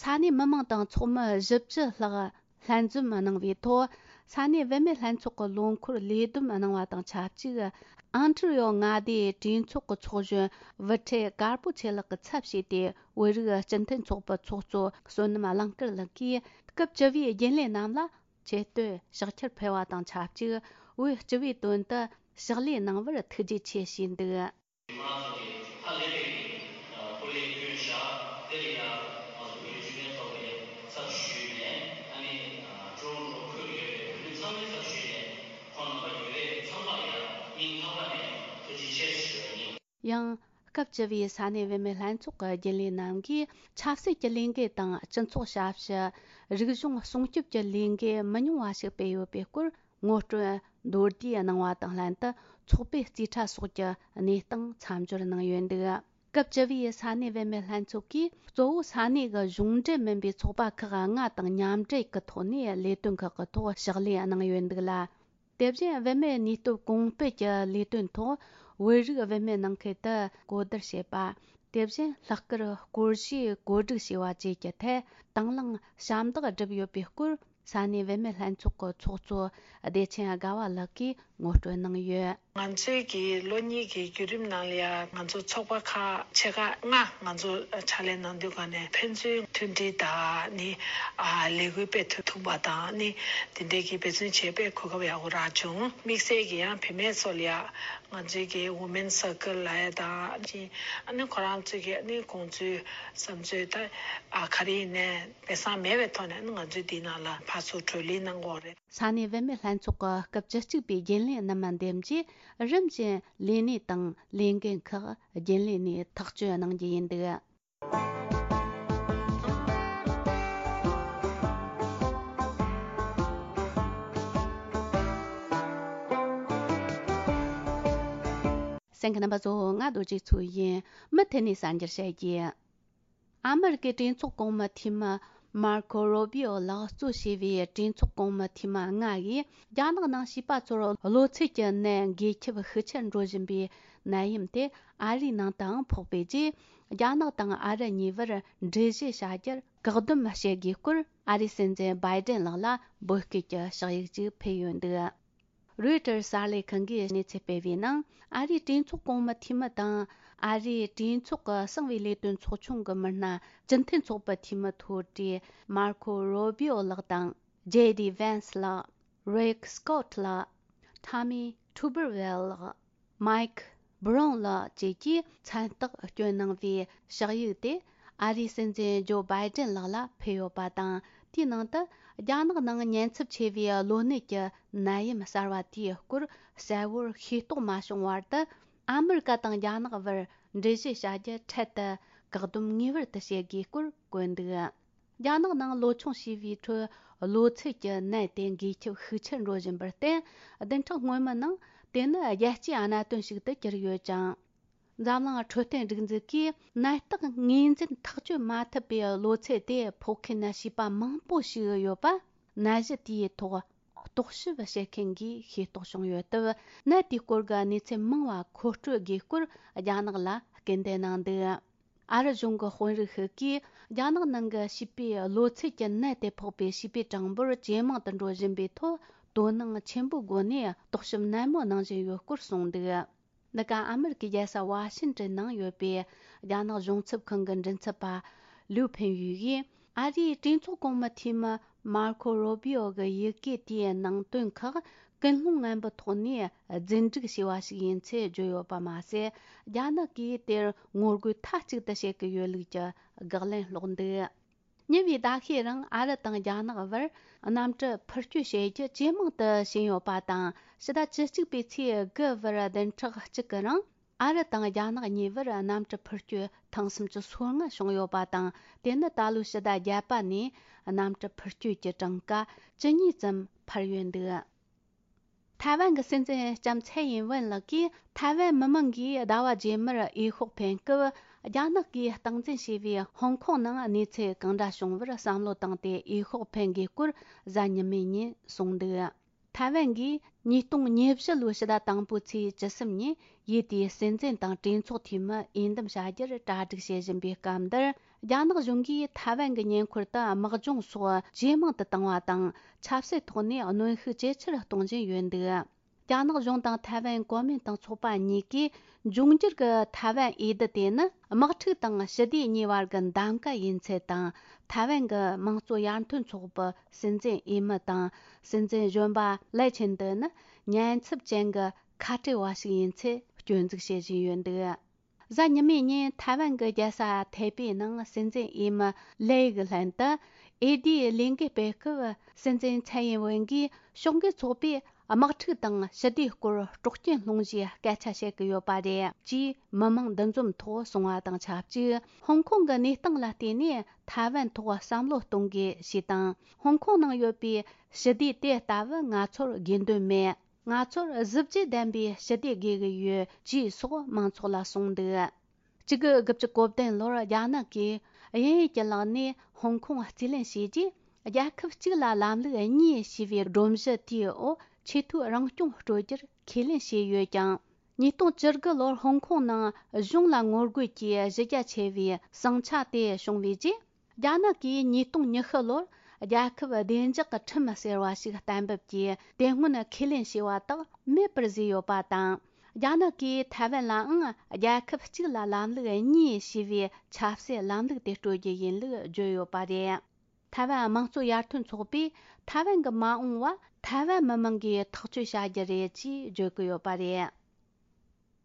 ས་གནས་མི་མང་དང་ཚོགས་མི་བཞི་བཅུ་ལྷག་ལྷན་འཛོམས་གནང་བའི་ཐོག་ས་གནས་བུད་མེད་ལྷན་ཚོགས་ཀྱི་ལོ་འཁོར་ལས་བསྡོམས་གནང་བ་དང་ཆབས་ཅིག་ཨོན་ཊ་རི་ཡོ་མངའ་སྡེའི་གྲོས་ཚོགས་ཀྱི་ཚོགས་གཞོན་བུ་ཁྲིད་དཀར་པོ་ཆོས་ལགས་ཀྱིས་ཚབ་བྱས་ཏེ། བོད་རིགས་སྤྱི་མཐུན་ཚོགས་པའི་ཚོགས་གཙོ་བསོད་ནམས་གླིང་དཀར་ལགས་ཀྱིས་སྐབས་བཅུ་པའི་རྒྱུན་ལས་རྣམས་ལ་ཆེ་བསྟོད་ཕྱག་འཁྱེར་ཕུལ་བ་དང་ཆབས་ཅིག་བོད་སྤྱི་པའི་དོན་དུ་ཕྱག་ལས་གནང་བར་ཐུགས་རྗེ་ཆེ་ཞུས་འདུག་ཁོ་རང་ཚོ་གི་ཧ་ལས་པའི་སྐུ་ལས་བསྐྱོན་བཞག་དེ་ལ་ཡང་ང་ཚོ་བོད་རིགས་སྤྱི་མཐུན་ཚོགས་པའི་ཚབ་ཞུས་ནས། ཨ་ནི་ཀྲུང་ལོ་ཁུལ་ཡོད་པའི་བོད་མི་ཚང་མའི་ཚབ་ཞུས་ནས་ཁོང་རྣམ་པ་ཡོད་རེད། ཚང་མ་ཡང་སྙིང་ཐག་པ་ནས་ཐུགས་རྗེ་ཆེ་ཞུ་བ་ཡིན། ཡང་སྐབས་བཅུ་པའི་ས་གནས་བུད་མེད་ལྷན་ཚོགས་ཀྱི་རྒྱུན་ལས་རྣམས་ཀྱིས་ཆབ་སྲིད་ཀྱི་ལས་འགུལ་དང་སྤྱི་ཚོགས་ཞབས་ཞུ། རིག་གཞུང་སྲུང་སྐྱོབ་ཀྱི་ལས་འགུལ་མི་ཉུང་བ་ཞིག་སྤེལ་ཡོད་པའི་སྐོར། ངོ་སྤྲོད་མདོར་བསྡུས་གནང་བ་དང་ལྷན་དུ་ཚོགས་པའི་རྩིས་ཁྲ་སོགས་ཀྱི་གནས་སྟངས་མཚམས་སྦྱོར་གནང་ཡོད་འདུག་སྐབས་བཅུ་པའི་ས་གནས་བུད་མེད་ལྷན་ཚོགས་ཀྱིས་གཙོ་བོ་ས་གནས་ཀྱི་གཞུང་འབྲེལ་མིན་པའི་ཚོགས་པ་ཁག་ལྔ་དང་མཉམ་འབྲེལ་གྱི་ཐོག་ནས་ལས་དོན་ཁག་གི་ཐོག་ཕྱག་ལས་གནང་ཡོད་འདུག་ལ། དེ་བཞིན་བུད་མེད་ནུས་སྟོབས་གོང་སྤེལ་གྱི་ལས་དོན་ཐོག་བོད་རིགས་བུད་མེད་ནང་ཁུལ་དུ་གོ་བསྡུར་བྱེད་པ། དེ་བཞིན་ལྷག་དཀར་སྐོར་ཞིབ་བཀོད་སྒྲིག་བྱས་པ་བཅས་ཀྱི་ཐད་དང་བླངས་ཞབས་འདེགས་བསྒྲུབས་ཡོད་པའི་སྐོར། ས་གནས་བུད་མེད་ལྷན་ཚོགས་ཀྱི་ཚོགས་གཙོ་བདེ་ཆེན་དགའ་བ་ལགས་ཀྱིས་ངོ་སྤྲོད་གནང་ཡོད། ང་ཚོའི་གི་ལོ་གཉིས་ཀྱི་བརྒྱུད་རིམ་ནང་ལ་ཡང་ང་ཚོ་ཚོགས་པ་ཁག་ཆེ་ཁག་ལྔ་ང་ཚོ་ཕྱག་ལས་གནང་དུས་ག་ནས་ཕན་ཚུན་མཐུན་སྒྲིལ་དང་ནི་ཨ་ལས་འགུལ་སྤེལ་ཐུབ་ཐུབ་པ་དང་ནི་དེ་འདྲའི་གི་འབད་བརྩོན་བྱས་པས་གོ་སྐབས་ཡག་པོ་རག་བྱུང་། དམིགས་བསལ་གྱི་ཡང་བུད་མེད་ཚོ་ལ་ཡང་ང་ཚོའི་གི་Women Circle་ལ་ཡ་དང་ཅིང་ཨ་ནི་ཁོ་རང་ཚོའི་གི་ཨ་ནི་དགོངས་ཚུལ་བསམ་ཚུལ་ད་ཨ་ག་རེ་ཡིན་ནའི་སྦས་གསང་མེད་པའི་ཐོག་ནས་ཨ་ནི་ང་ཚོའི་འདི་ནང་ལ་ཕར་ཚུར་གྲོས་གླེང་གནང་གི་ཡོད་རེད། ས་གནས་བུད་མེད་ལྷན་ཚོགས་ཀྱི་སྐབས་བཅུ་གཅིག་པའི་རྒྱུན་ལས་རྣམ་པ་འདེམས་ཀྱིས་ རིམ་བཞིན་ལས་གནས་དང་ལས་འགན་ཁག་རྒྱུན་ལས་ནས་ཐག་གཅོད་གནང་རྒྱུ་ཡིན་འདུག་གསན་མཁན་རྣམ་པ་ཚོ། ང་རྡོ་རྗེ་མཚོ་ཡིན། མུ་མཐུད་ནས་གསར་འགྱུར་བཤད་རྒྱུ། ཨ་མི་རི་ཀའི་གྲོས་ཚོགས་གོང་མའི་འཐུས་མི་མར་ཁོ་རོ་བྷི་ཨོ་ལགས་གཙོས་བྱས་པའི་གྲོས་ཚོགས་གོང་མའི་འཐུས་མི་ལྔ་ཡིས་རྒྱ་ནག་ནང་བྱིས་པ་ཚོར་གློ་ཚད་ཀྱི་ནད་འགོས་ཁྱབ་ཤུགས་ཆེར་འགྲོ་བཞིན་པའི་ནད་ཡམས་དེ་ཨ་རིའི་ནང་དུའང་ཕོག་པའི་རྗེས། རྒྱ་ནག་དང་ཨ་རི་གཉིས་བར་འགྲུལ་བཞུད་བྱ་རྒྱུར་བཀག་སྡོམ་བྱེད་དགོས་སྐོར། ཨ་རིའི་སྲིད་འཛིན་བྷའི་ཏིན་ལགས་ལ་འབོད་སྐུལ་གྱི་ཕྱག་ཡིག་ཅིག་ཕུལ་ཡོད་འདུག་རོའི་ཊར་གསར་ལས་ཁང་གིས་གནས་ཚུལ་སྤེལ་བའི་ནང་། ཨ་རིའི་གྲོས་ཚོགས་གོང་མའི་འཐུས་མི་དང་ཨ་རིའི་གྲོས་ཚོགས་ཀྱི་གསང་བའི་ལས་དོན་ཚོགས་ཆུང་གི་མི་སྣ་སྤྱི་མཐུན་ཚོགས་པའི་འཐུས་མི་མཐོ་གྲས་མར་ཁོ་རོ་བྷི་ཨོ་ལགས་དང་། ཇེ་ཌི་ཝན་སི་ལགས། རིག་སྐོད་ལགས། ཊོ་མི་ཐུ་བར་ཝེལ་ལགས། མའེ་ཁི་སྦི་རོན་ལགས་བཅས་ཀྱིས་མཚན་རྟགས་བསྐྱོན་གནང་བའི་ཕྱག་ཡིག་དེ་ཨ་རིའི་སྲིད་འཛིན་ཇོ་བྷའི་ཏིན་ལགས་ལ་ཕུལ་ཡོད་པ་དང་། དེའི་ནང་དུ་རྒྱ་ནག་ནང་ཉེན་ཚབས་ཆེ་བའི་གློ་ནད་ཀྱི་ནད་ཡམས་གསར་བ་དེའི་སྐོར་གསལ་བོར་ཤེས་རྟོགས་མ་བྱུང་བར་དུ། ཨ་མི་རི་ཀ་དང་རྒྱ་ནག་བར་འགྲུལ་བཞུད་བྱ་རྒྱུ་འཕྲལ་དུ་བཀག་སྡོམ་ངེས་པར་དུ་བྱེད་དགོས་སྐོར་བཀོད་འདུག་རྒྱ་ནག་ནང་ལོ་ཆུང་བྱིས་པའི་ཁྲོད་གློ་ཚད་ཀྱི་ནད་དེ་འགོས་ཁྱབ་ཤུགས་ཆེར་འགྲོ་བཞིན་པར་བརྟེན། བདུན་ཕྲག་སྔོན་མའི་ནང་དེ་ནི་རྒྱལ་སྤྱིའི་གནད་དོན་ཞིག་ཏུ་གྱུར་ཡོད་ཅིང་། འཛམ་གླིང་འཕྲོད་བསྟེན་སྒྲིག་འཛུགས་ཀྱིས་ནད་རྟགས་ངོས་འཛིན་ཐག་གཅོད་མ་ཐུབ་པའི་གློ་ཚད་དེ་ཕོག་མཁན་བྱིས་པ་མང་པོ་ཞིག་ཡོད་པ། ནད་གཞི་དེའི་ཐོག་རྟོག་ཞིབ་བྱེད་མཁན་གྱིས་ཤེས་རྟོགས་བྱུང་ཡོད་སྟབས། ནད་དེའི་སྐོར་གྱི་གནས་ཚུལ་མང་བ་མཁོ་སྤྲོད་དགོས་སྐོར་རྒྱ་ནག་ལ་སྐུལ་འདེད་གནང་འདུག་ཨ་རི་གཞུང་གི་དཔོན་རིགས་ཤིག་གིས་རྒྱ་ནག་ནང་གི་བྱིས་པའི་གློ་ཚད་ཀྱི་ནད་དེ་ཕོག་པའི་བྱིས་པའི་གྲངས་འབོར་ཇེ་མང་དུ་འགྲོ་བཞིན་པའི་ཐོག་དོ་སྣང་ཆེན་པོའི་སྒོ་ནས་རྟོག་ཞིབ་ནན་མོ་གནང་བཞིན་ཡོད་སྐོར་གསུངས་འདུག་འདི་ག་ཨ་མི་རི་ཀའི་རྒྱལ་ས་ཝ་ཤིང་ཏོན་ནང་ཡོད་པའི་རྒྱ་ནག་གཞུང་ཚབ་ཁང་གི་མགྲིན་ཚབ་པ་ལིའུ་ཕིན་ཡུས་ཡིས། ཨ་རིའི་གྲོས་ཚོགས་གོང་མའི་འཐུས་མི་མར་ཁོ་རོ་བྷི་ཨོ་གི་ཡི་གེ་དེའི་ནང་དོན་ཁག་ཀུན་སློང་ངན་པའི་ཐོག་ནས་རྫུན་སྒྲིག་བྱས་པ་ཞིག་ཡིན་ཚུལ་བརྗོད་ཡོད་པ་མ་ཟད། རྒྱ་ནག་གིས་དེར་ངོ་རྒོལ་མཐའ་གཅིག་ཏུ་བྱེད་ཀྱི་ཡོད་ལུགས་ཀྱི་དགག་ལན་སློག་འདུག་ཉེ་བའི་ཟླ་ཤས་རིང་ཨ་རི་དང་རྒྱ་ནག་བར་གནམ་གྲུ་འཕུར་སྐྱོད་བྱེད་རྒྱུ་ཇེ་མང་དུ་ཕྱིན་ཡོད་པ་དང་། ཕྱི་ཟླ་བཅུ་གཅིག་པའི་ཚེས་དགུ་བར་བདུན་ཕྲག་གཅིག་གི་རིང་། ཨ་རི་དང་རྒྱ་ནག་གཉིས་བར་གནམ་གྲུ་འཕུར་སྐྱོད་ཐེངས་སུམ་ཅུ་སོ་ལྔ་བྱུང་ཡོད་པ་དང་། དེ་ནི་ད་ལོའི་ཕྱི་ཟླ་བརྒྱད་པ་ནས་གནམ་གྲུ་འཕུར་སྐྱོད་ཀྱི་གྲངས་ཀ་ཇི་སྙེད་ཙམ་འཕར་ཡོད་འདུག་ཐའེ་ཝན་གྱི་སྲིད་འཛིན་ལྕམ་ཚའེ་ཡིན་ཝེན་ལགས་ཀྱིས། ཐའེ་ཝན་མི་མང་གིས་ཟླ་བ་རྗེས་མར་འོས་ཤོག་འཕེན་སྐབས། རྒྱ་ནག་གིས་སྟངས་འཛིན་བྱས་པའི་ཧོང་ཀོང་ནང་གནས་ཚུལ་གང་འདྲ་བྱུང་བར་བསམ་བློ་བཏང་སྟེ་འོས་ཤོག་འཕེན་དགོས་སྐོར་གཟའ་ཉི་མའི་ཉིན་གསུངས་འདུག་ཐའེ་ཝན་གྱིས་ཉིས་སྟོང་ཉེར་བཞི་ལོའི་ཕྱི་ཟླ་དང་པོའི་ཚེས་བཅུ་གསུམ་ཉིན་ཡུལ་དེའི་སྲིད་འཛིན་དང་གྲོས་ཚོགས་འཐུས་མི་འོས་འདེམས་བྱ་རྒྱུར་གྲ་སྒྲིག་བྱེད་བཞིན་པའི་སྐབས་འདིར། རྒྱ་ནག་གཞུང་གིས་ཐའེ་ཝན་གྱི་ཉེ་འཁོར་དུ་དམག་སྦྱོང་སོགས་ཇེ་མང་དུ་བཏང་བ་དང་། ཆབ་སྲིད་ཐོག་ནས་གནོན་ཤུགས་ཇེ་ཆེར་གཏོང་བཞིན་ཡོད་འདུག་རྒྱ་ནག་གཞུང་དང་ཐའེ་ཝན་གོ་མིན་ཏང་ཚོགས་པ་གཉིས་ཀས། འབྱུང་འགྱུར་གྱི་ཐའེ་ཝན་འོས་བསྡུ་དེ་ནི་དམག་འཁྲུག་དང་ཞི་བདེ་གཉིས་བར་གྱི་གདམ་ག་ཡིན་ཚུལ་དང་། ཐའེ་ཝན་གྱི་དམངས་གཙོ་ཡར་ཐོན་ཚོགས་པའི་སྲིད་འཛིན་འོས་མི་དང་། སྲིད་འཛིན་གཞོན་པ་ལའེ་ཆིན་ཏེ་ནི་ཉེན་ཚབས་ཅན་གྱི་ཁ་བྲལ་བ་ཞིག་ཡིན་ཚུལ་སྐྱོན་འཛུགས་བྱེད་བཞིན་ཡོད་འདུག་གཟའ་ཉི་མའི་ཉིན་ཐའེ་ཝན་གྱི་རྒྱལ་ས་ཐའེ་པེ་ནང་སྲིད་འཛིན་འོས་མི་ལའེ་གི་ལྷན་དུ་འོས་བསྡུའི་ལས་འགུལ་སྤེལ་སྐབས། སྲིད་འཛིན་ཚའེ་ཡིན་ཝེན་གྱིས་ཕྱོགས་འགལ་ཚོགས་པས་དམག་འཁྲུག་དང་ཞི་བདེའི་སྐོར་སྲོག་སྐྱོན་སློང་རྒྱུའི་སྐད་ཆ་བཤད་ཀྱི་ཡོད་པ་རེད་ཅེས་མི་མང་འདུ་འཛོམས་ཐོག་གསུངས་པ་དང་ཆབས་ཅིག་ཧོང་ཀོང་གི་གནས་སྟངས་ལ་བལྟས་ནས་ཐའེ་ཝན་ཐོག་བསམ་བློ་གཏོང་དགོས་ཞེས་དང་། ཧོང་ཀོང་ནང་ཡོད་པའི་ཞི་བདེ་དེ་ལྟ་བུ་ང་ཚོར་དགོས་འདུན་མེད། ང་ཚོར་གཟི་བརྗིད་ལྡན་པའི་ཞི་བདེ་དགོས་ཀྱི་ཡོད་ཅེས་སོགས་མང་ཚོགས་ལ་གསུངས་འདུག་གཅིག་དགུ་དགུ་བཅུ་གོ་བདུན་ལོར་རྒྱ་ནག་གིས་དབྱིན་ཡུལ་གྱི་ལག་ནས་ཧོང་ཀོང་རྩིས་ལེན་བྱས་རྗེས། རྒྱལ་ཁབ་གཅིག་ལ་ལམ་ལུགས་གཉིས་ཞེས་པའི་སྒྲོམ་གཞི་དེའི་འོག་ཆེས་མཐོའི་རང་སྐྱོང་སྤྲོད་རྒྱུར་ཁས་ལེན་བྱས་ཡོད་ཀྱང་། ཉིས་སྟོང་བཅུ་དགུ་ལོར་ཧོང་ཀོང་ནང་གཞུང་ལ་ངོ་རྒོལ་གྱིས་གཞི་རྒྱ་ཆེ་བའི་ཟིང་ཆ་དེ་བྱུང་བའི་རྗེས། རྒྱ་ནག་གིས་ཉིས་སྟོང་ཉི་ཤུ་ལོར་རྒྱལ་ཁབ་བདེ་འཇགས་ཀྱི་ཁྲིམས་ཟེར་བ་ཞིག་གཏན་འབེབས་ཀྱིས་དེ་སྔོན་ཁས་ལེན་བྱས་པ་དག་མེད་པར་བཟོས་ཡོད་པ་དང་། རྒྱ་ནག་གིས་ཐའེ་ཝན་ལའང་རྒྱལ་ཁབ་གཅིག་ལ་ལམ་ལུགས་གཉིས་ཞེས་པའི་ཆབ་སྲིད་ལམ་ལུགས་དེ་སྤྲོད་རྒྱུ་ཡིན་ལུགས་བརྗོད་ཡོད་པ་རེད། ཐའེ་ཝན་དམངས་གཙོ་ཡར་ཐོན་ཚོགས་པས་ཐའེ་ཝན་གྱི་མ་འོངས་པ་ཐའེ་ཝན་མི་མང་གིས་ཐག་གཅོད་བྱ་རྒྱུ་རེད་ཅེས་བརྗོད་ཀྱི་ཡོད་པ་རེད།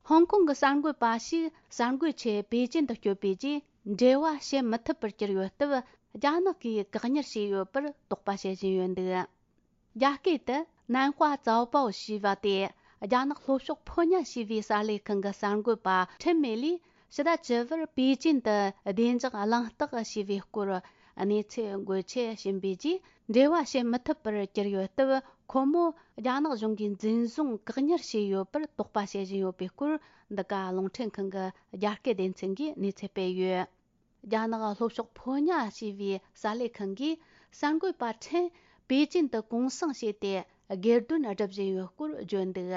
ཧོང་ཀོང་གི་གསར་འགོད་པ་ཞིག་གསར་འགོད་ཆེད་པེ་ཅིན་དུ་བསྐྱོད་པའི་རྗེས། འབྲེལ་བ་བྱེད་མི་ཐུབ་པར་གྱུར་ཡོད་སྟབས། རྒྱ་ནག་གིས་བཀག་ཉར་བྱས་ཡོད་པར་དོགས་པ་བྱེད་བཞིན་ཡོད་འདུག་རྒྱ་སྐད་དུ་ནན་ཧྭ་ཙའོ་པའོ་ཞེས་པ་དེ་ རྒྱ་ནག་ལྷོ་ཕྱོགས་ཕོ་ཉ་ཞེས་པའི་གསར་ལས་ཁང་གི་གསར་འགོད་པ་ཁྲིན་མེ་ལིས་ཕྱི་ཟླ་བཅུ་བར་པེ་ཅིན་དུ་བདེ་འཇགས་གླེང་སྟེགས་ཞེས་པའི་སྐོར་གནས་ཚུལ་འགོད་ཆེད་ཕྱིན་པའི་རྗེས། འབྲེལ་བ་བྱེད་མི་ཐུབ་པར་གྱུར་ཡོད་སྟབས། ཁོ་མོ་རྒྱ་ནག་གཞུང་གིས་འཛིན་བཟུང་བཀག་ཉར་བྱས་ཡོད་པར་དོགས་པ་བྱེད་བཞིན་ཡོད་པའི་སྐོར། འདི་ག་རླུང་འཕྲིན་ཁང་གི་རྒྱ་སྐད་སྡེ་ཚན་གྱིས་གནས་ཚུལ་སྤེལ་ཡོད། རྒྱ་ནག་ལྷོ་ཕྱོགས་ཕོ་ཉ་ཞེས་པའི་གསར་ལས་ཁང་གིས་གསར་འགོད་པ་ཁྲིན་པེ་ཅིན་དུ་གུང་སེང་བྱས་ཏེ། སྒེར་དོན་སྒྲུབ་བཞིན་ཡོད་སྐོར་བརྗོད་འདུག་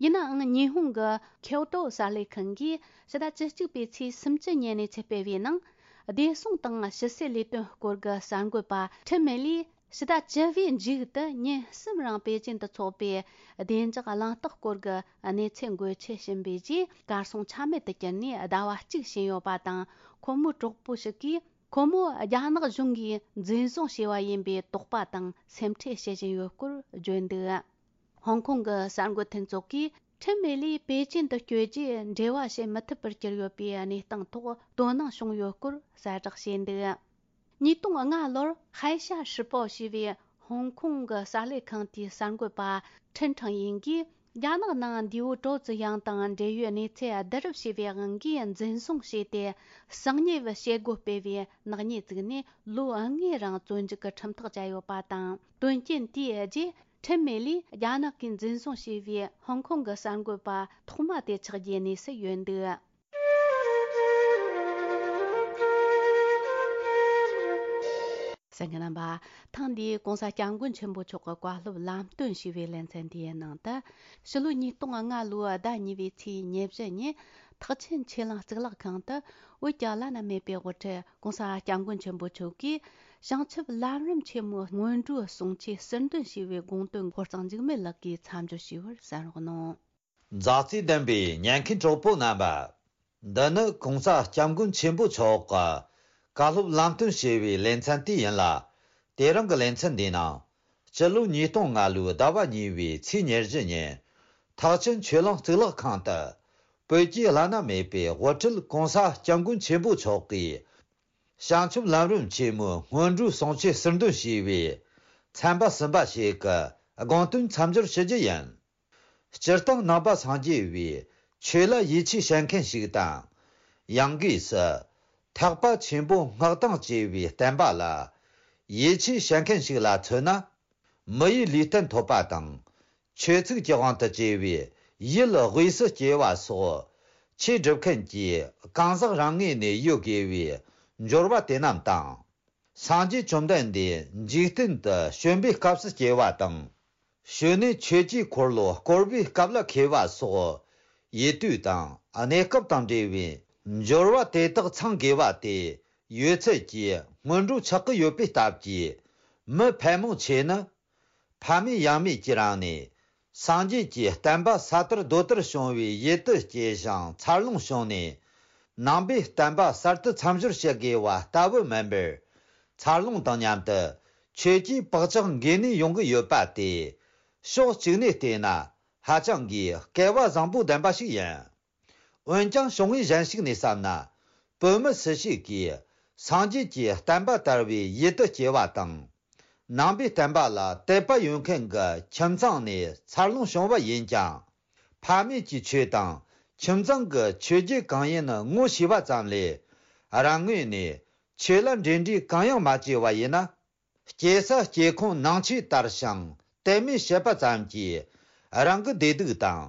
ཡིན་ནའང་། ཉི་ཧོང་གི་ཁྱོ་ཏོ་གསར་ལས་ཁང་གིས་ཕྱི་ཟླ་བཅུ་གཅིག་པའི་ཚེས་སུམ་ཅུ་ཉིན་གནས་ཚུལ་སྤེལ་བའི་ནང་། བདེ་སྲུང་དང་ཕྱི་སྲིད་ལས་དོན་སྐོར་གྱི་གསར་འགོད་པ་ཁྲིན་མེ་ལིས་ཕྱི་ཟླ་བཅུ་བའི་མཇུག་ཏུ་ཉིན་གསུམ་རིང་པེ་ཅིན་དུ་འཚོགས་པའི་བདེ་འཇགས་གླེང་སྟེགས་སྐོར་གྱི་གནས་ཚུལ་འགོད་ཆེད་ཕྱིན་པའི་རྗེས། གར་སོང་ཆ་མེད་དུ་གྱུར་ནས་ཟླ་བ་གཅིག་ཕྱིན་ཡོད་པ་དང་། ཁོ་མོའི་གྲོགས་པོ་ཞིག་གིས་ཁོ་མོ་རྒྱ་ནག་གཞུང་གིས་འཛིན་བཟུང་བྱས་པ་ཡིན་པའི་དོགས་པ་དང་སེམས་ཁྲལ་བྱེད་བཞིན་ཡོད་སྐོར་བརྗོད་འདུག་ཧོང་ཀོང་གི་གསར་འགོད་མཐུན་ཚོགས་ཀྱིས་ཁྲིན་མེ་ལིས་པེ་ཅིན་དུ་བསྐྱོད་རྗེས་འབྲེལ་བ་བྱེད་མི་ཐུབ་པར་གྱུར་ཡོད་པའི་གནས་སྟངས་ཐོག་དོ་སྣང་བྱུང་ཡོད་སྐོར་གསལ་བསྒྲགས་བྱས་འདུག་ཉིས་སྟོང་ལྔ་ལོར་ཧའེ་ཤ་ཧྲི་པའོ་ཞེས་པའི་ཧོང་ཀོང་གི་གསར་ལས་ཁང་དེའི་གསར་འགོད་པ་ཁྲིན་ཁྲང་ཡིན་གྱིས། རྒྱ་ནག་ནང་འདས་པོ་ཀྲོའུ་ཙི་དབྱང་དང་འབྲེལ་ཡོད་གནས་ཚུལ་བསྡུ་རུབ་བྱས་པའི་དབང་གིས་འཛིན་བཟུང་བྱས་ཏེ། གསང་ཉུལ་བྱེད་སྒོ་སྤེལ་བའི་ནག་ཉེས་བཙུགས་ནས་ལོ་ལྔའི་རིང་བཙོན་འཇུག་གི་ཁྲིམས་ཐག་བཅད་ཡོད་པ་དང་། དོན་རྐྱེན་དེའི་རྗེས། ཁྲིན་མེ་ལིས་རྒྱ་ནག་གིས་འཛིན་བཟུང་བྱས་པའི་ཧོང་ཀོང་གི་གསར་འགོད་པ་ཐོག་མ་དེ་ཆགས་རྒྱུའི་གནས་སུ་ཡོད་འདུག་གསན་མཁན་རྣམ་པ། ཐེངས་འདིའི་༧གོང་ས་༧སྐྱབས་མགོན་ཆེན་པོ་མཆོག་གི་བཀའ་སློབ་ལམ་སྟོན་ཞུས་པའི་ལེ་ཚན་འདིའི་ནང་དུ། ཕྱི་ལོ་ཉིས་སྟོང་ལྔ་ལོའི་ཟླ་གཉིས་པའི་ཚེས་ཉེར་བཞི་ཉིན། ཐེག་ཆེན་ཆོས་གླིང་གཙུག་ལག་ཁང་དུ་བོད་ཀྱི་བླ་ན་མེད་པའི་དབུ་ཁྲིད་༧གོང་ས་༧སྐྱབས་མགོན་ཆེན་པོ་མཆོག་གིས། བྱང་ཆུབ་ལམ་རིམ་ཆེན་མོའི་སྔོན་འགྲོའི་གསུང་ཆོས་ཟུར་འདོན་ཞུས་པའི་དགོངས་དོན་ཕོ་བྲང་འཇིགས་མེད་ལགས་ཀྱིས་མཚམས་སྦྱོར་ཞུས་པར་གསན་རོགས་གནང་། མཛའ་བརྩེ་ལྡན་པའི་ཉན་མཁན་གྲོགས་པོ་རྣམ་པ། འདི་ནི་༧གོང་ས་༧སྐྱབས་མགོན་ཆེན་པོ་མཆོག་གི་བཀའ་སློབ་ལམ་སྟོན་ཞུས་པའི་ལེ་ཚན་དེ་ཡིན་ལ། དེ་རིང་གི་ལེ་ཚན་འདིའི་ནང་། སྤྱི་ལོ་ཉིས་སྟོང་ལྔ་ལོའི་ཟླ་བ་གཉིས་པའི་ཚེས་ཉེར་བཞི་ཉིན། ཐེག་ཆེན་ཆོས་གླིང་གཙུག་ལག་ཁང་དུ། བོད་ཀྱི་བླ་ན་མེད་པའི་དབུ་ཁྲིད་༧གོང་ས་༧སྐྱབས་མགོན་ཆེན་པོ་མཆོག་གིས། བྱང་ཆུབ་ལམ་རིམ་ཆེན་མོའི་སྔོན་འགྲོའི་གསུང་ཆོས་ཟུར་འདོན་ཞུས་པའི་ཚན་པ་གསུམ་པ་ཞིག་གི་དགོངས་དོན་མཚམས་སྦྱོར་ཞུ་རྒྱུ་ཡིན། སྤྱིར་བཏང་ནང་པ་སངས་རྒྱས་པའི་ཆོས་ལ་ཡིད་ཆེས་བྱེད་མཁན་ཞིག་དང་། ཡང་སྒོས་སུ་ཐེག་པ་ཆེན་པོ་སྔགས་དང་བཅས་པའི་བསྟན་པ་ལ་ཡིད་ཆེས་བྱེད་མཁན་ཞིག་ལ་མཚོན་ན། མི་ཡི་ལུས་རྟེན་ཐོབ་པ་དང་། ཆོས་ཚིག་གི་དབང་དུ་བཅས་པའི་ཡུལ་དབུས་སུ་སྐྱེ་བ་སོགས་ཆོས་སྒྲུབ་མཁན་གྱི་གང་ཟག་རང་ངོས་ནས་ཡོད་དགོས་པའི་འབྱོར་བ་དེ་རྣམས་དང་། སངས་རྒྱས་བཅོམ་ལྡན་འདས་འཇིག་རྟེན་དུ་བྱོན་པའི་སྐབས་སུ་སྐྱེ་བ་དང་། བྱོན་ནས་ཆོས་ཀྱི་འཁོར་ལོ་བསྐོར་བའི་སྐབས་ལ་མཁས་པ་སོགས་ཡུལ་དུས་དང་གནས་སྐབས་དང་འབྲེལ་བའི་འབྱོར་བ་དེ་དག་ཚང་དགོས་པ་དེ་ཡོད་ཚད་ཀྱི་སྔོན་འགྲོ་ཆགས་ཀྱི་ཡོད་པའི་སྟབས་ཀྱིས། མི་ཕལ་མོ་ཆེ་ནི། ཕ་མེས་ཡང་མེས་ཀྱི་རིང་ནས། སངས་རྒྱས་ཀྱི་བསྟན་པ་ས་དར་རྡོ་དར་བྱུང་བའི་ཡུལ་དུ་སྐྱེས་ཤིང་འཚར་ལོངས་བྱུང་ནས། ནང་པའི་བསྟན་པ་གསར་དུ་མཚམས་སྦྱོར་བྱེད་དགོས་པ་ལྟ་བུ་མིན་པར། འཚར་ལོངས་དང་མཉམ་དུ་ཆོས་ཀྱི་བག་ཆགས་འགོས་ནས་ཡོང་གི་ཡོད་པ་དེ། ཕྱོགས་གཅིག་ནས་བལྟས་ན་ཧ་ཅང་གི་སྐལ་བ་བཟང་པོ་ལྡན་པ་ཞིག་ཡིན། འོན་ཀྱང་བྱུང་བའི་གཞན་ཞིག་ནས་བསམ་ན། བོད་མི་སུ་ཞིག་གིས་སངས་རྒྱས་ཀྱི་བསྟན་པ་དར་བའི་ཡུལ་དུ་སྐྱེ་བ་དང་། ནང་པའི་བསྟན་པ་ལ་དད་པ་ཡོད་མཁན་གྱི་ཁྱིམ་ཚང་ནས་འཚར་ལོངས་བྱུང་བ་ཡིན་ཀྱང་། ཕ་མེས་ཀྱི་ཆོས་དང་ཁྱིམ་ཚང་གི་ཆོས་བརྒྱུད་གང་ཡིན་ངོ་ཤེས་པ་ཙམ་ལས། རང་ངོས་ནས་ཆོས་ལ་འབྲེལ་འདྲིས་གང་ཡང་མ་བྱས་པ་ཡིན་ན། སྐྱེ་ས་སྐྱེ་ཁུངས་ནང་ཆོས་དར་ཞིང་དད་མོས་བྱེད་པ་ཙམ་གྱིས། རང་གི་བདེ་སྡུག་དང་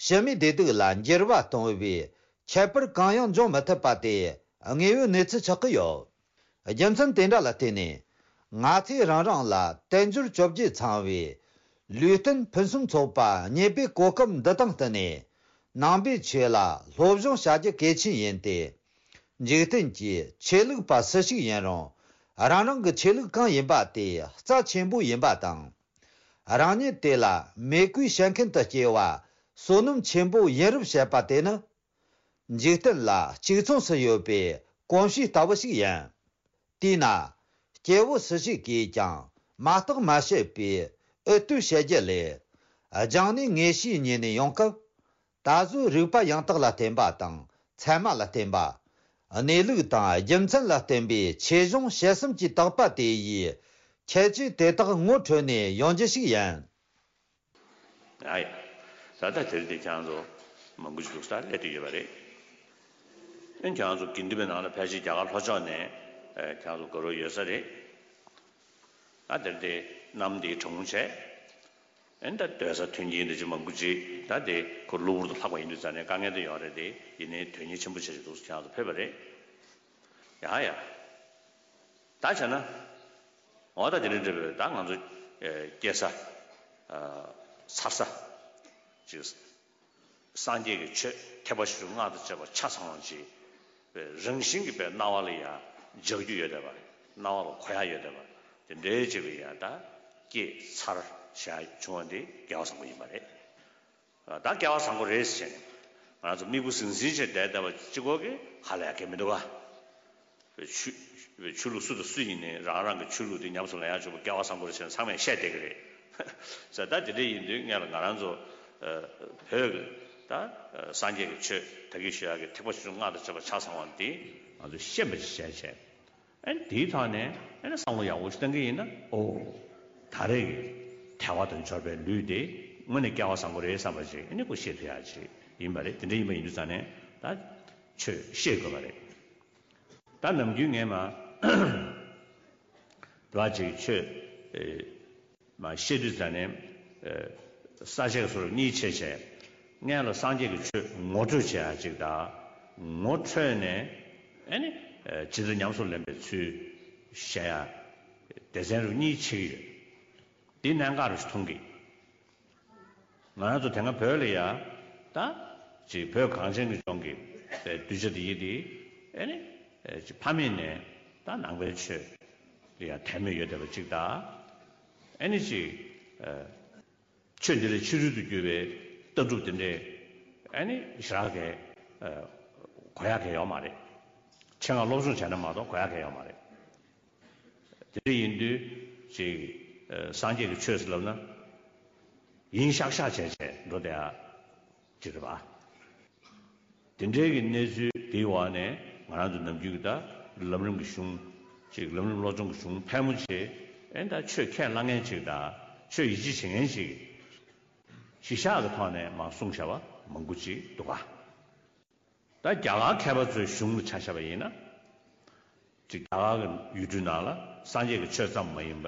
ཕྱི་མའི་བདེ་སྡུག་ལ་འགྱུར་བ་གཏོང་བའི་ཁྱད་པར་གང་ཡང་འབྱུང་མི་ཐུབ་པ་དེ་དངོས་ཡོད་གནས་ཚུལ་ཆགས་ཀྱི་ཡོད། རྒྱུ་མཚན་དེ་འདྲ་ལ་བརྟེན་ནས། ང་ཚོས་རང་རང་ལ་དལ་འབྱོར་བཅོ་བརྒྱད་ཚང་བའི་ལུས་རྟེན་ཕུན་སུམ་ཚོགས་པ་རྙེད་པའི་གོ་སྐབས་འདི་དང་བསྟུན་ནས། ནང་པའི་ཆོས་ལ་སློབ་སྦྱོང་བྱ་རྒྱུ་གལ་ཆེན་ཡིན་ཏེ། འཇིག་རྟེན་གྱི་ཆོས་ལུགས་པ་སུ་ཞིག་ཡིན་རུང་། རང་རང་གི་ཆོས་ལུགས་གང་ཡིན་པ་དེ་རྩ་ཆེན་པོ་ཡིན་པ་དང་། རང་ཉིད་དེ་ལ་མོས་གུས་བྱེད་མཁན་དུ་སྐྱེ་བ་བསོད་ནམས་ཆེན་པོ་ཡིན་རབས་བཤད་པ་དེ་ནི། འཇིག་རྟེན་ལ་གཅིག་མཚུངས་སུ་ཡོད་པའི་གོམས་གཤིས་ལྟ་བུ་ཞིག་ཡིན། དེས་ན། སྐྱེ་བོ་སུ་ཞིག་གིས་ཀྱང་མ་བརྟགས་མ་དཔྱད་པའི་འུད་བསྟོད་བྱེད་རྒྱུ་ལས། སྦྱངས་ནས་ངེས་ཤེས་རྙེད་ནས་ཡོང་སྐབས། ད་གཟོད་རིག་པ་ཡང་དག་ལ་བརྟེན་པ་དང་ཚད་མ་ལ་བརྟེན་པ། གནས་ལུགས་དང་རྒྱུ་མཚན་ལ་བརྟེན་པའི་ཆོས་གཞུང་བྱེད་སེམས་ཀྱི་དག་པ་དེ་ཡིས་ཁྱད་ཆོས་དེ་དག་ངོ་འཕྲོད་ནས་ཡོང་རྒྱུ་ཞིག་ཡིན། ཨ་ཡ། ད་ལྟ་དེར་དེ་ཁྱེད་རང་ཚོ་མང་པོ་ཞིག་འདུག་ས་སླེབས་བསྡད་ཡོད་པ་རེད། ཨེ་ཁྱེད་རང་ཚོ་དགེ་འདུན་པའི་ནང་ལ་ཕལ་ཆེར་རྒྱ་གར་ལྷོ་ཕྱོགས་ནས་ཨེ་ཁྱེད་རང་ཚོ་དགའ་རོགས་ཡོད་ས་རེད། ད་དེར་དེ་གནམ་དེ་གྲང་མོ་བྱས། ཨེ་ད་སྡོད་ས་མཐུན་རྐྱེན་འདི་ཅིག་མང་པོ་ཅིག་ད་དེ་ཁོ་གློ་བུར་དུ་ལྷག་པ་ཡིན་དུས་ཙང་ནས་དཀའ་ངལ་དེ་ཡོད་རེད་དེ། ཡིན་ནའི་དོན་གཉེར་ཆེན་པོ་བྱས་ཅིག་འདུག་ས་ཁྱེད་རང་ཚོ་ཕེབས་པ་རེད། ཡ་ཡ། ད་བྱས་ན། འོ་ད་དེ་རིང་འདྲ་བའི་ད་ང་ཚོ་ཨེ་སྐྱེ་ས། ཨ་འཚར་ས། ཅིག་སངས་རྒྱས་ཀྱི་ཆོས་ཐེག་པ་ཆེ་ཆུང་སྔགས་དང་བཅས་པ་ཆ་ཚང་བ་ཅིག་པའི་རང་བཞིན་གྱིས་པའི་སྣང་བ་ལ་ཡང་འཇགས་རྒྱུ་ཡོད་བསྡད་པ། སྣང་བ་ལ་གོ་ཡ་ཡོད་བསྡད་པ། དེ་འདྲའི་ཅིག་གི་ཡང་ད་སྐྱེས་ཚར་བྱ་བྱུང་བ་འདི་སྐལ་བ་བཟང་པོ་ཡིན་པ་རེད། ད་སྐལ་བ་བཟང་པོ་རེད་ཟེར་ནས་ང་ཚོ་མིག་དཔེ་ཟིང་ཟིང་བྱས་བསྡད་བསྡད་པ་གཅིག་པོ་གིས་ཧ་ལས་ཡ་གལ་མི་འདུག་ག་ཆོས་ཆོས་ལུགས་སུ་དང་སུ་ཡིན་ནའི་རང་རང་གི་ཆོས་ལུགས་དེ་ཉམས་སུ་ལེན་ཡག་ཆོག་པ་སྐལ་བ་བཟང་པོ་རེད་ཟེར་ནས་ཚང་མས་བཤད་བསྡད་ཀྱི་རེད། ཟེར་ད་དེ་འདྲ་ཡིན་དུས་སྔོན་ལ་ང་རང་ཚོ་བོད་ཀྱི་ད་སངས་རྒྱས་ཀྱི་ཆོས་ད་གིན་ཞུ་ཡག་གི་ཐེག་པ་ཆེ་ཆུང་སྔགས་དང་བཅས་པ་ཆ་ཚང་བ་འདི་ང་ཚོས་ཤེས་པ་ཅིག་བྱས་བྱས། ཨ་ནི་དེའི་ཐོག་ནས་ཨ་ནི་བསམ་བློ་ཡག་པོ་ཞིག་བཏང་གི་ཡིན་ན། ཨོ། ད་རེས་ཀྱི་ཐལ་བ་དང་འབྱོར་པའི་ལུས་དེ་དངོས་གནས་སྐལ་བ་བཟང་པོ་རེད་བསམ་པ་ཅིག་ཨ་ནི་ཁོ་ཤེས་ཐུབ་ཡག་ཅིག་ཡིན་པ་རེད། དེ་འདྲ་ཡིན་པ་ཡིན་དུས་ཙང་ནས་ད་ཆོས་ཤེས་དགོས་པ་རེད། ད་ནམ་རྒྱུན་ངས་མ་དེ་བ་ཅིག་ཆོས་ཨེ་མ་ཤེས་དུས་ཙང་ནས་ཨེ་ས་བཅད་སོར་གཉིས་ཕྱེ་བྱས། སྔོན་ལ་སངས་རྒྱས་ཀྱི་ཆོས་ངོ་སྤྲོད་བྱེད་ཡ་ཅིག་དང་། ངོ་འཕྲོད་ནས་ཨེ་ནི་ཨེ་ཇི་ལྟར་ཉམས་སུ་ལེན་པའི་ཚུལ་བཤད་ཡ་སྡེ་ཚན་རུ་གཉིས་ཕྱེ་གི་ཡོད། འདི་གནད་འགག་རུ་མཐོང་གི། ང་རང་ཚོ་དེ་སྔ་བོད་ལ་ཡ་ད་ཅིག་བོད་གངས་ཅན་གྱི་ལྗོངས་ཀྱི་གདུལ་བྱ་དེ་ཡི་དེ་ཨེ་ནི་ཨེ་ཅིག་ཕ་མེས་ནས་ད་ནང་པའི་ཆོས་ལ་ཡ་དད་མོས་ཡོད་བསྡད་པ་ཅིག་དང་། ཨེ་ནི་ཅིག་ཨེ་ཆོས་འདི་ལས་ཕྱི་རོལ་དུ་གྱུར་པའི་ལྟ་གྲུབ་དེ་འདྲས་ཨེ་ནི་ཞེ་དྲག་གི་ཨེ་གོ་ཡག་གི་ཡོད་མ་རེད། ཆེད་མངགས་སློབ་སྦྱོང་བྱས་ན་མ་གཏོགས་གོ་ཡག་གི་ཡོད་མ་རེད། དེ་འདྲ་ཡིན་དུས་ཅིག་ཨ་སངས་རྒྱས་ཀྱི་ཆོས་ཟེར་ལབ་ན་ཡིན་ཤག་ཤག་བྱས་བྱས་འགྲོ་བསྡད་ཡ་ཅིག་རེད་པ། དེ་འདྲའི་གི་གནས་ཚུལ་དེའི་འོག་ནས་ང་རང་ཚོ་ནམ་རྒྱུན་གྱི་ད་ལམ་རིམ་གྱི་གཞུང་ཅིག་ལམ་རིམ་བློ་སྦྱོང་གི་གཞུང་ཕལ་མོ་ཆེ་ཨེ་ད་ཆོས་ཁས་བླངས་མཁན་ཅིག་དང་ཆོས་ཡིད་ཆེས་བྱེད་མཁན་ཅིག་གཞི་བཞག་གི་ཐོག་ནས་མར་གསུངས་བཞག་པ་མང་པོ་ཅིག་འདུག་ག་ད་རྒྱ་གར་མཁས་པ་ཚོའི་གཞུང་ལ་ཆ་བཞག་པ་ཡིན་ན། ཅིག་རྒྱ་གར་གྱི་ཡུལ་གྲུའི་ནང་ལ་སངས་རྒྱས་ཀྱི་ཆོས་ཙམ་མ་ཡིན་པ།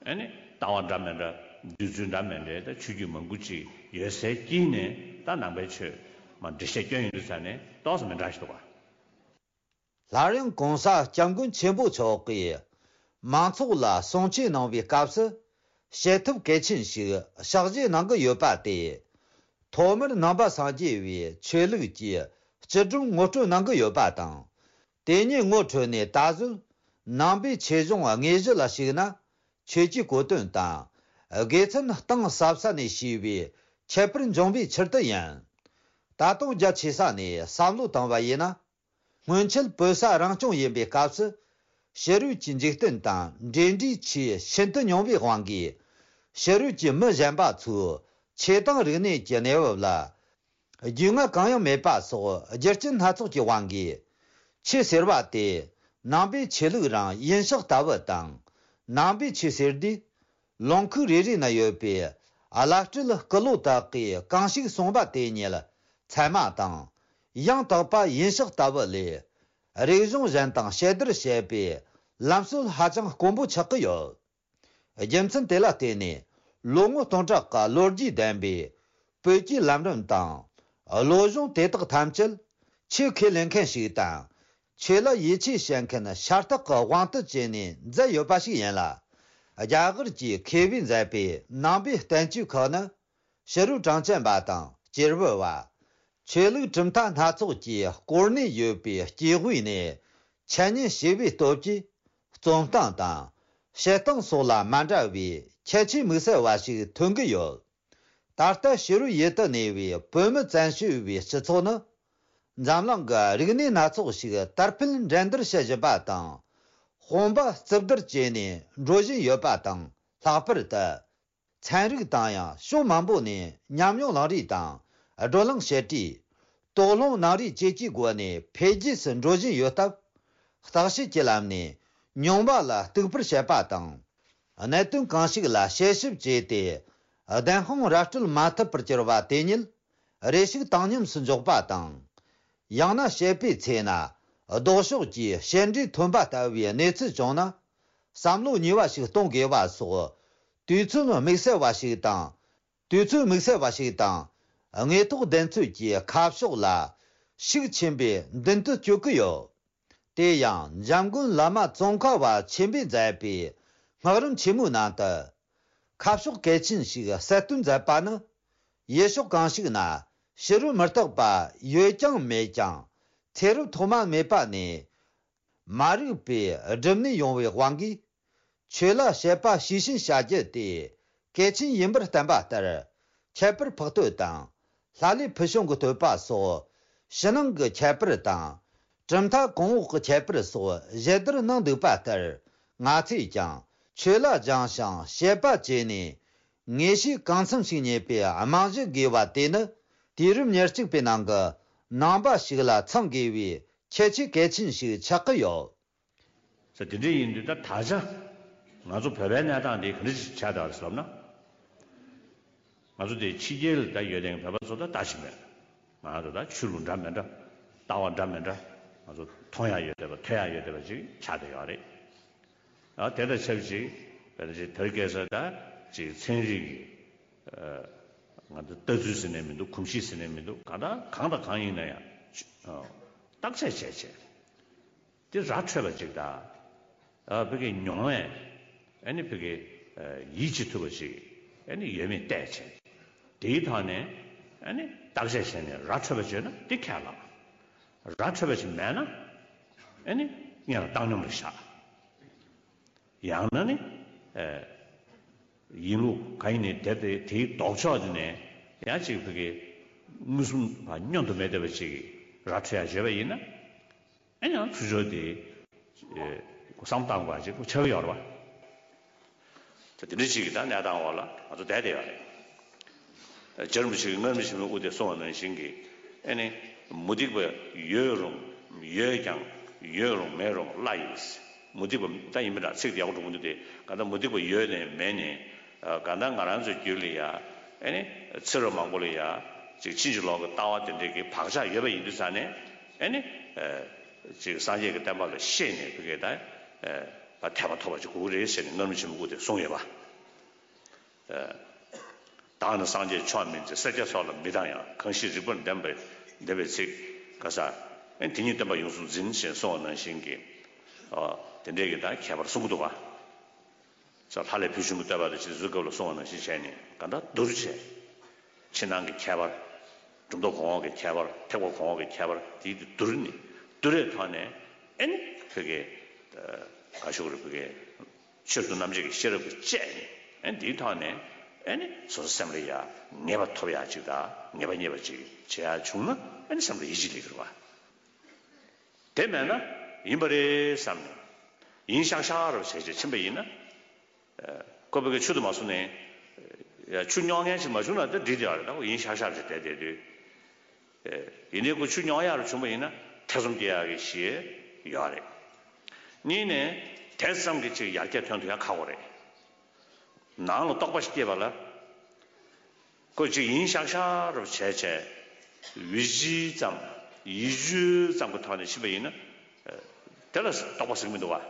ཨ་ནི་ལྟ་བ་འདྲ་མི་འདྲ་འདོད་ཚུལ་འདྲ་མི་འདྲའི་ད་ཆོས་བརྒྱུད་མང་པོ་ཅིག་ཡོད་སའི་དཀྱིལ་ནས་ད་ནང་པའི་ཆོས་མ་འགྲེལ་བཤད་སྐྱོན་ཡོང་དུས་ཙང་ནས་ཏོག་ཙམ་མི་འདྲ་ཞིག་འདུག་ག་སླར་ཡང་གོང་ས་སྐྱབས་མགོན་ཆེན་པོ་མཆོག་གིས་མང་ཚོགས་ལ་གསུང་ཆོས་གནང་བའི་སྐབས་སུ་བྱེད་ཐབས་གལ་ཆེན་ཞིག་ཕྱག་བཞེས་གནང་གི་ཡོད་པ་དེ། ཐོག་མར་ནང་པ་སངས་རྒྱས་པའི་ཆོས་ལུགས་ཀྱི་སྤྱི་སྒྲོམ་ངོ་སྤྲོད་གནང་གི་ཡོད་པ་དང་། དེ་ཉིད་ངོ་འཕྲོད་ནས་ད་གཟོད་ནང་པའི་ཆོས་གཞུང་དངོས་གཞི་ལ་ཞུགས་ན་ཆོས་ཀྱི་གོ་དོན་དང་དགེ་མཚན་གཏིང་ཟབ་ས་ནས་ཤེས་པའི་ཁྱད་པར་འབྱུང་བའི་ཕྱིར་དུ་ཡིན། ད་དུང་རྒྱ་ཆེ་ས་ནས་བསམ་བློ་བཏང་བ་ཡིན་ན། སྔོན་ཆད་བོད་ས་རང་སྐྱོང་ཡིན་པའི་སྐབས་སུ། ཕྱི་རོལ་གྱི་འཇིག་རྟེན་དང་འབྲེལ་འདྲིས་ཆེས་ཤིན་ཏུ་ཉུང་བའི་དབང་གིས། ཕྱི་རོལ་གྱི་མི་གཞན་པ་ཚོས་ཆོས་དང་རིག་གནས་ཀྱི་གནས་བབ་ལ་རྒྱུས་མངའ་གང་ཡང་མེད་པ་སོགས་རྒྱུ་རྐྱེན་སྣ་ཚོགས་ཀྱི་དབང་གིས། ཆོས་ཟེར་བ་དེ་ནང་པའི་ཆོས་ལུགས་རང་ཡིན་ཤག་ལྟ་བུ་དང་། ནང་པའི་ཆོས་ཟེར་དུས། ལུང་ཁུག་རེ་རེ་ན་ཡོད་པའི་བླ་སྤྲུལ་སྐུ་ལོ་དག་གིས་གང་ཞིག་གསུངས་པ་དེ་ཉིད་ཚད་མ་དང་། ཡང་དག་པ་ཡིན་ཤག་ལྟ་བུ་ལས། རིག་གཞུང་གཞན་དང་ཕྱི་བསྡུར་བྱེད་པའི་ལམ་སྲོལ་ཧ་ཅང་དཀོན་པོ་ཆགས་ཀྱི་ཡོད། རྒྱུ་མཚན་དེ་ལ་བརྟེན་ནས་ལོ་ངོ་སྟོང་ཕྲག་གི་ལོ་རྒྱུས་ལྡན་པའི་བོད་ཀྱི་ལམ་རིམ་དང་། བློ་སྦྱོང་དེ་དག་ཐམས་ཅད་ཆོས་ཁས་ལེན་མཁན་ཞིག་དང་། ཆོས་ལ་ཡིད་ཆེས་བྱེད་མཁན་ཤ་སྟག་གི་དབང་དུ་བྱས་ནས་མཛད་ཡོད་པ་ཞིག་ཡིན་ལ། རྒྱ་གར་གྱི་མཁས་པས་མཛད་པའི་ནང་པའི་བསྟན་བཅོས་ཁག་ནི། ཕྱི་རོལ་གྲངས་ཅན་པ་དང་སྐྱེས་བུ་བ། ཆོས་ལུགས་གྲུབ་མཐའ་སྣ་ཚོགས་ཀྱི་སྐོར་གནས་ཡོད་པའི་སྐྱེས་བུ་ནས་འཆད་ཉན་བྱས་པའི་སྟོབས་ཀྱིས། རྩོམ་སྟངས་དང་། བཤད་སྟངས་སོགས་ལ་མ་འདྲ་བའི་ཁྱད་ཆོས་དམིགས་བསལ་བ་ཞིག་ཐོན་གྱི་ཡོད། ད་ལྟ་ཕྱི་རོལ་ཡུལ་དུ་གནས་པའི་བོད་མི་བཙན་བྱོལ་བའི་སྤྱི་ཚོགས་ནི། འཛམ་གླིང་གི་རིག་གནས་སྣ་ཚོགས་ཤིག་དར་འཕེལ་འགྲན་བསྡུར་བྱེད་བཞིན་པ་དང་། དཔུང་པ་གཙུབ་བསྡུར་བྱས་ནས་འགྲོ་བཞིན་ཡོད་པ་དང་། ལྷག་པར་དུ། ཚན་རིག་དང་ཡང་ཕྱོགས་མང་པོ་ནས་ཉམས་མྱོང་བླངས་རེས་དང་། བགྲོ་གླེང་བྱེད་རེས། དོགས་སློང་གནང་རེས་བཅས་ཀྱི་སྒོ་ནས་འཕེལ་རྒྱས་སུ་འགྲོ་བཞིན་ཡོད་སྟབས། བརྟག་དཔྱད་ཀྱི་ལམ་ནས་མྱོང་བ་ལ་གཏུག་པར་བྱེད་པ་དང་། གནད་དོན་གང་ཞིག་ལ་དཔྱད་ཞིབ་བྱས་ཏེ། བདེན་དཔང་ར་སྤྲོད་མ་ཐུབ་པར་གྱུར་པ་དེ་ཉིད་རེ་ཞིག་བཏང་སྙོམས་སུ་འཇོག་པ་དང་། ཡང་ན་བཤད་པའི་ཚེ་ན་ལྡོག་ཕྱོགས་ཀྱི་བཤད་འབྲས་ཐོན་པ་ལྟ་བུའི་གནས་ཚུལ་བྱུང་ན། བསམ་བློ་ཉེས་པ་ཞིག་གཏོང་དགོས་པ་སོགས་དུས་ཚོད་དམིགས་བསལ་བ་ཞིག་དང་། དུས་ཚོད་དམིགས་བསལ་བ་ཞིག་དང་། དངོས་ཐོག་བདེན་འཚོལ་གྱི་ཁ་ཕྱོགས་ལ་ཤུགས་ཆེན་པོས་མདུན་དུ་སྐྱོད་ཀྱི་ཡོད། དེ་ཡང་འཇམ་མགོན་བླ་མ་ཙོང་ཁ་པ་ཆེན་པོས་མཛད་པའི་སྔགས་རིམ་ཆེན་མོའི་ནང་དུ། ཁ་ཕྱོགས་གལ་ཆེན་ཞིག་གསལ་སྟོན་མཛད་པ་ནི། ཡུལ་ཕྱོགས་གང་ཞིག་ན་ཕྱི་རོལ་མི་རྟག་པ་ཡོད་ཀྱང་མེད་ཀྱང་ཚེ་རབས་ཐོག་མ་མེད་པ་ནས་མ་རིག་པའི་སྒྲིབ་གནས་ཡོང་བའི་དབང་གིས། ཆོས་ལ་དཔྱད་པ་ཤེས་བཞིན་བྱ་རྒྱུ་དེ་གལ་ཆེན་ཡིན་པར་བསྟན་པ་ལྟར། ཁྱད་པར་འཕགས་བསྟོད་དང་། ལྷ་ལས་ཕུལ་བྱུང་གི་བསྟོད་པ་སོགས། ཕྱི་ནང་གི་ཁྱད་པར་དང་། གྲུབ་མཐའ་གོང་འོག་གི་ཁྱད་པར་སོགས་ཞིབ་བསྡུར་གནང་འདུག་པ་ལྟར། ང་ཚོས་ཀྱང་ཆོས་ལ་སྦྱངས་ཤིང་དཔྱད་པ་བྱས་ནས། ངེས་ཤེས་གང་འཚམ་ཞིག་རྙེད་པའི་རྨང་གཞི་དགོས་པ་དེ་ནི། དུས་རབས་ཉེར་གཅིག་པའི་ནང་གི་ནང་པ་ཞིག་ལ་ཚང་དགོས་པའི་ཁྱད་ཆོས་གལ་ཆེན་ཞིག་ཆགས་ཀྱི་ཡོད། ཟེར། དེ་འདྲ་ཡིན་དུས་ད་ད་ཆ་ང་ཚོ་བོད་པའི་གནས་སྟངས་འདི་ག་འདྲ་ཞིག་ཆགས་བསྡད་པ་རེད་ཟེར་ལབ་ན། ང་ཚོ་དེ་ཕྱི་རྒྱལ་ལ་ད་ཡོད་དེ་བོད་པ་ཚོ་ད་ལྟ་ཞིག་མེད། ང་ཚོ་ད་ཆོས་ལུགས་འདྲ་མི་འདྲ། ལྟ་བ་འདྲ་མི་འདྲ། ང་ཚོ་མཐོང་ཡ་ཡོད་བསྡད་པ་ཐོས་ཡ་ཡོད་བསྡད་པ་ཅིག་ཆགས་བསྡད་ཡོད་རེད། ཨ་དེ་དང་ཆབས་ཅིག་བོད་ཅིག་དེར་སྐད་ས་ད་ཅིག་ཚན་རིག་གི་ང་ཚོ་ལྟ་ཚུལ་ཟེར་ནས་མི་འདུག་གོམས་གཤིས་ཟེར་ནས་མི་འདུག་གང་ལྟར་གང་དང་གང་ཡིན་ན་ཡང་བརྟག་དཔྱད་བྱས་བྱས། དེ་ར་འཕྲོད་པ་ཅིག་དང་། ཨ་ཕ་གི་མྱོང་བས་ཨ་ནི་ཕ་གི་ཡིད་ཆེས་ཐུབ་པ་ཅིག་ཨ་ནི་ཡོད་མེད་བལྟས་བྱས། དེའི་ཐོག་ནས་ཨ་ནི་བརྟག་དཔྱད་བྱས་ནས་ར་འཕྲོད་པ་བརྗོད་ན་དེ་ཁས་བླངས། ར་འཕྲོད་པ་ཅིག་མེད་ན་ཨ་ནི་སྔོན་ལ་བཏང་སྙོམས་ལ་བཞག་ཡང་ན་ནི་ཨ་ཡིན་ལུགས་གང་ཡིན་ནས་དེ་དེ་དེའི་ལྡོག་ཕྱོགས་དེ་ནས་ཡང་ཅིག་ཕ་གི་མངོན་སུམ་བ་བསྙོན་དུ་མེད་བསྡད་པ་ཅིག་ར་འཕྲོད་ཡ་བརྗོད་པ་ཡིན་ན། ཨེ་ཡང་ཚུར་ཕྱོགས་དེ་བསམ་བཏང་དགོས་པ་ཅིག་ཁོ་ཆགས་ཀྱི་ཡོད་རེད་པ། དེ་འདྲ་ཅིག་གི་ད་གནས་སྟངས་འོག་ལ་ང་ཚོ་བསྡད་བསྡད་ཡོད་རེད། རྗེ་རིན་པོ་ཆེ་གིས་སྔར་མེད་ཕྱི་མའི་དབུ་དེ་གསུངས་པ་ནང་བཞིན་གྱི་ཨེ་ནི་མུ་སྟེགས་པ་ཡོད་རུང་ཡོད་ཀྱང་ཡོད་རུང་མེད་རུང་བླ་ཡིན། མུ་སྟེགས་པ་ད་ཡིན་པ་འདྲ་ཚིག་དེ་ཡག་པོ་འགྲོ་གི་འདུག་སྟེ་གང་ལྟར་མུ་སྟེགས་པ་ཡོད་ནས་མེད་ནས་གང་ལྟར་ང་རང་ཚོའི་རྒྱུད་ལ་ཡ་ཨེ་ནི་ཚེ་རབས་མང་པོ་ལ་ཡ་ཅིག་ཕྱིན་ཅི་ལོག་གི་ལྟ་བ་དེ་འདྲའི་གི་བག་ཆགས་ཡོད་པ་ཡིན་དུས་ཙང་ནས་ཨེ་ནི། ཅིག་སངས་རྒྱས་ཀྱི་བསྟན་པ་ལ་ཤེས་ནས་ཕ་གི་ད་ཨ་ཐེག་པ་ཐོབ་པ་ཅིག་དགོས་ཀྱི་རེད་ཟེར་ནས་སྔར་མེད་ཕྱི་མའི་དབུ་དེ་གསུངས་ཡོད་པ། ཨ་བདག་ནི་སངས་རྒྱས་མཆོག་མིན་ཟེར། སྲས་བཅས་སོགས་ལ་མི་སྡང་ཡང་། གང་ཞིག་རིགས་པར་ལྡན་པའི་ལྡན་པའི་ཚིག་ག་ས་ཨེ་དེ་ཉིད་བསྟན་པ་ཡོངས་སུ་འཛིན་ཞེས་གསུངས་པ་ནང་བཞིན་གྱི་ཨ་དེ་འདྲའི་གི་ད་ཁྱད་པར་གསུང་གི་འདུག་ག་ས་ལྷ་ལས་ཕུལ་བྱུང་གི་བསྟོད་པ་དང་ཅི་ཟུར་སྐབས་ལ་གསུངས་པ་ནང་བཞིན་བྱས་ནས་གང་ལྟར་བསྡུར་བྱས། ཕྱི་ནང་གི་ཁྱད་པར། གྲུབ་མཐའ་གོང་འོག་གི་ཁྱད་པར། ཐེག་པ་གོང་འོག་གི་ཁྱད་པར་དེ་བསྡུར་ནས་བསྡུར་བའི་ཐོག་ནས་ཨེ་ནི་ཕ་གི་ག་ཞུ་དགོས་རེད། ཕ་གི་ཆོས་སུ་རྣམ་འབྱེད་ཀྱི་ཤེས་རབ་ཀྱིས་དཔྱད་ནས་ཨེ་ནི་དེའི་ཐོག་ནས་ཨེ་ནི་སོ་སོ་སེམས་ལ་ཡ་ངེས་པ་ཐོབ་ཡ་ཅིག་དང་ངེས་པ་རྙེད་པ་ཅིག་བྱེད་ཡ་བྱུང་ན་ཨེ་ནི་སེམས་ལ་ཡིད་ཆེས་སླེབས་ཀྱི་རེད་པ། དེ་མེད་ན་ཡིན་པ་རེད་བསམ་ནས་ཡིན་ཤག་ཤག་རབ་བྱས་བྱས་ཕྱིན་པ་ཡིན་ན། ཨ་ཁོ་ཕ་གི་ཆུ་དུ་མ་སོང་ནས་ཡ་ཆུ་རྙོག་མཁན་ཞིག་མ་བྱུང་ན་ད་འགྲིག་བསྡད་ཡོད་རེད། ད་ཁོ་ཡིན་ཤག་ཤག་རེད་བསྡད་བསྡད་དུས། ཨེ་ཡིན་ནའི་ཁོ་ཆུ་རྙོག་ཡག་རུ་བྱུང་པ་ཡིན་ན་ཐེ་ཚོམ་སྐྱེ་ཡག་གི་གཞི་ཡོད་རེད། གཉིས་ནས་དེ་ཙམ་གྱི་ཅིག་ཡར་རྒྱས་ཐོན་ཐུབ་ཡག་ཁག་པོ་རེད། ནང་ལ་རྟོག་པ་ཞིག་སྐྱེས་པ་ལ། ཁོ་ཅིག་ཡིན་ཤག་ཤག་རུ་བྱས་བྱས། ཡིད་ཆེས་ཙམ། ཡིད་དཔྱོད་ཙམ་གྱི་ཐོག་ནས་ཕྱིན་པ་ཡིན་ན། དེ་ལ་རྟོག་པ་ཟེར་གྱི་མི་འདུག་བ།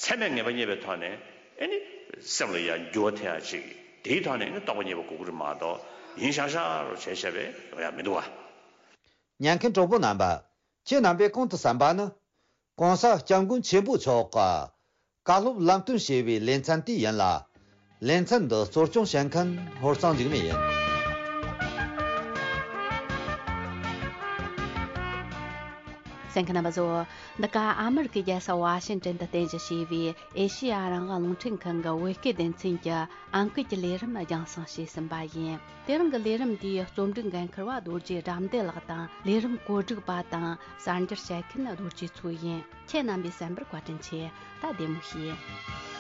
ཚད་མས་ངེས་པ་རྙེད་པའི་ཐོག་ནས་ཨེ་ནི་སེམས་ལ་ཡང་འགྱུར་བ་ཐེབས་ཡག་ཅིག་དེའི་ཐོག་ནས་ཨེ་ནི་རྟོགས་པ་རྙེད་པ་དགོས་ཀྱི་རེད་མ་གཏོགས་ཡིན་ཤག་ཤག་རུ་བྱས་བྱས་པས་ཡོང་ཡག་མི་འདུག་བ། ཉན་མཁན་གྲོགས་པོ་རྣམ་པ། ཁྱེད་རྣམ་པས་གོང་དུ་གསན་པ་ནི། ྋགོང་ས་ྋསྐྱབས་མགོན་ཆེན་པོ་མཆོག་གི་བཀའ་སློབ་ལམ་སྟོན་ཞེས་པའི་ལེ་ཚན་དེ་ཡིན་ལ། ལེ་ཚན་འདི་གཙོ་སྐྱོང་བྱེད་མཁན་ཧོར་གཙང་འཇིགས་མེད་ཡིན། གསན་མཁན་རྣམ་པ་ཚོ། འདི་ག་ཨ་མི་རི་ཀའི་རྒྱལ་ས་ཝ་ཤིང་ཏན་དུ་རྟེན་གཞི་བྱས་པའི་ཨེ་ཤེ་ཡ་རང་དབང་རླུང་འཕྲིན་ཁང་གི་བོད་སྐད་སྡེ་ཚན་གྱི་ཨང་ཀི་གི་ལས་རིམ་རྒྱང་སྲིང་བྱས་ཟིན་པ་ཡིན། དེ་རིང་གི་ལས་རིམ་འདིའི་རྩོམ་སྒྲིག་འགན་འཁུར་བ་རྡོ་རྗེ་དགྲ་འདུལ་ལགས་དང་། ལས་རིམ་གོ་སྒྲིག་པ་དང་གསར་འགྱུར་བཤད་མཁན་རྡོ་རྗེ་མཚོ་ཡིན། ཁྱེད་རྣམ་པས་གསན་པར་བཀའ་དྲིན་ཆེ། ད་བདེ་མོ་བྱོས།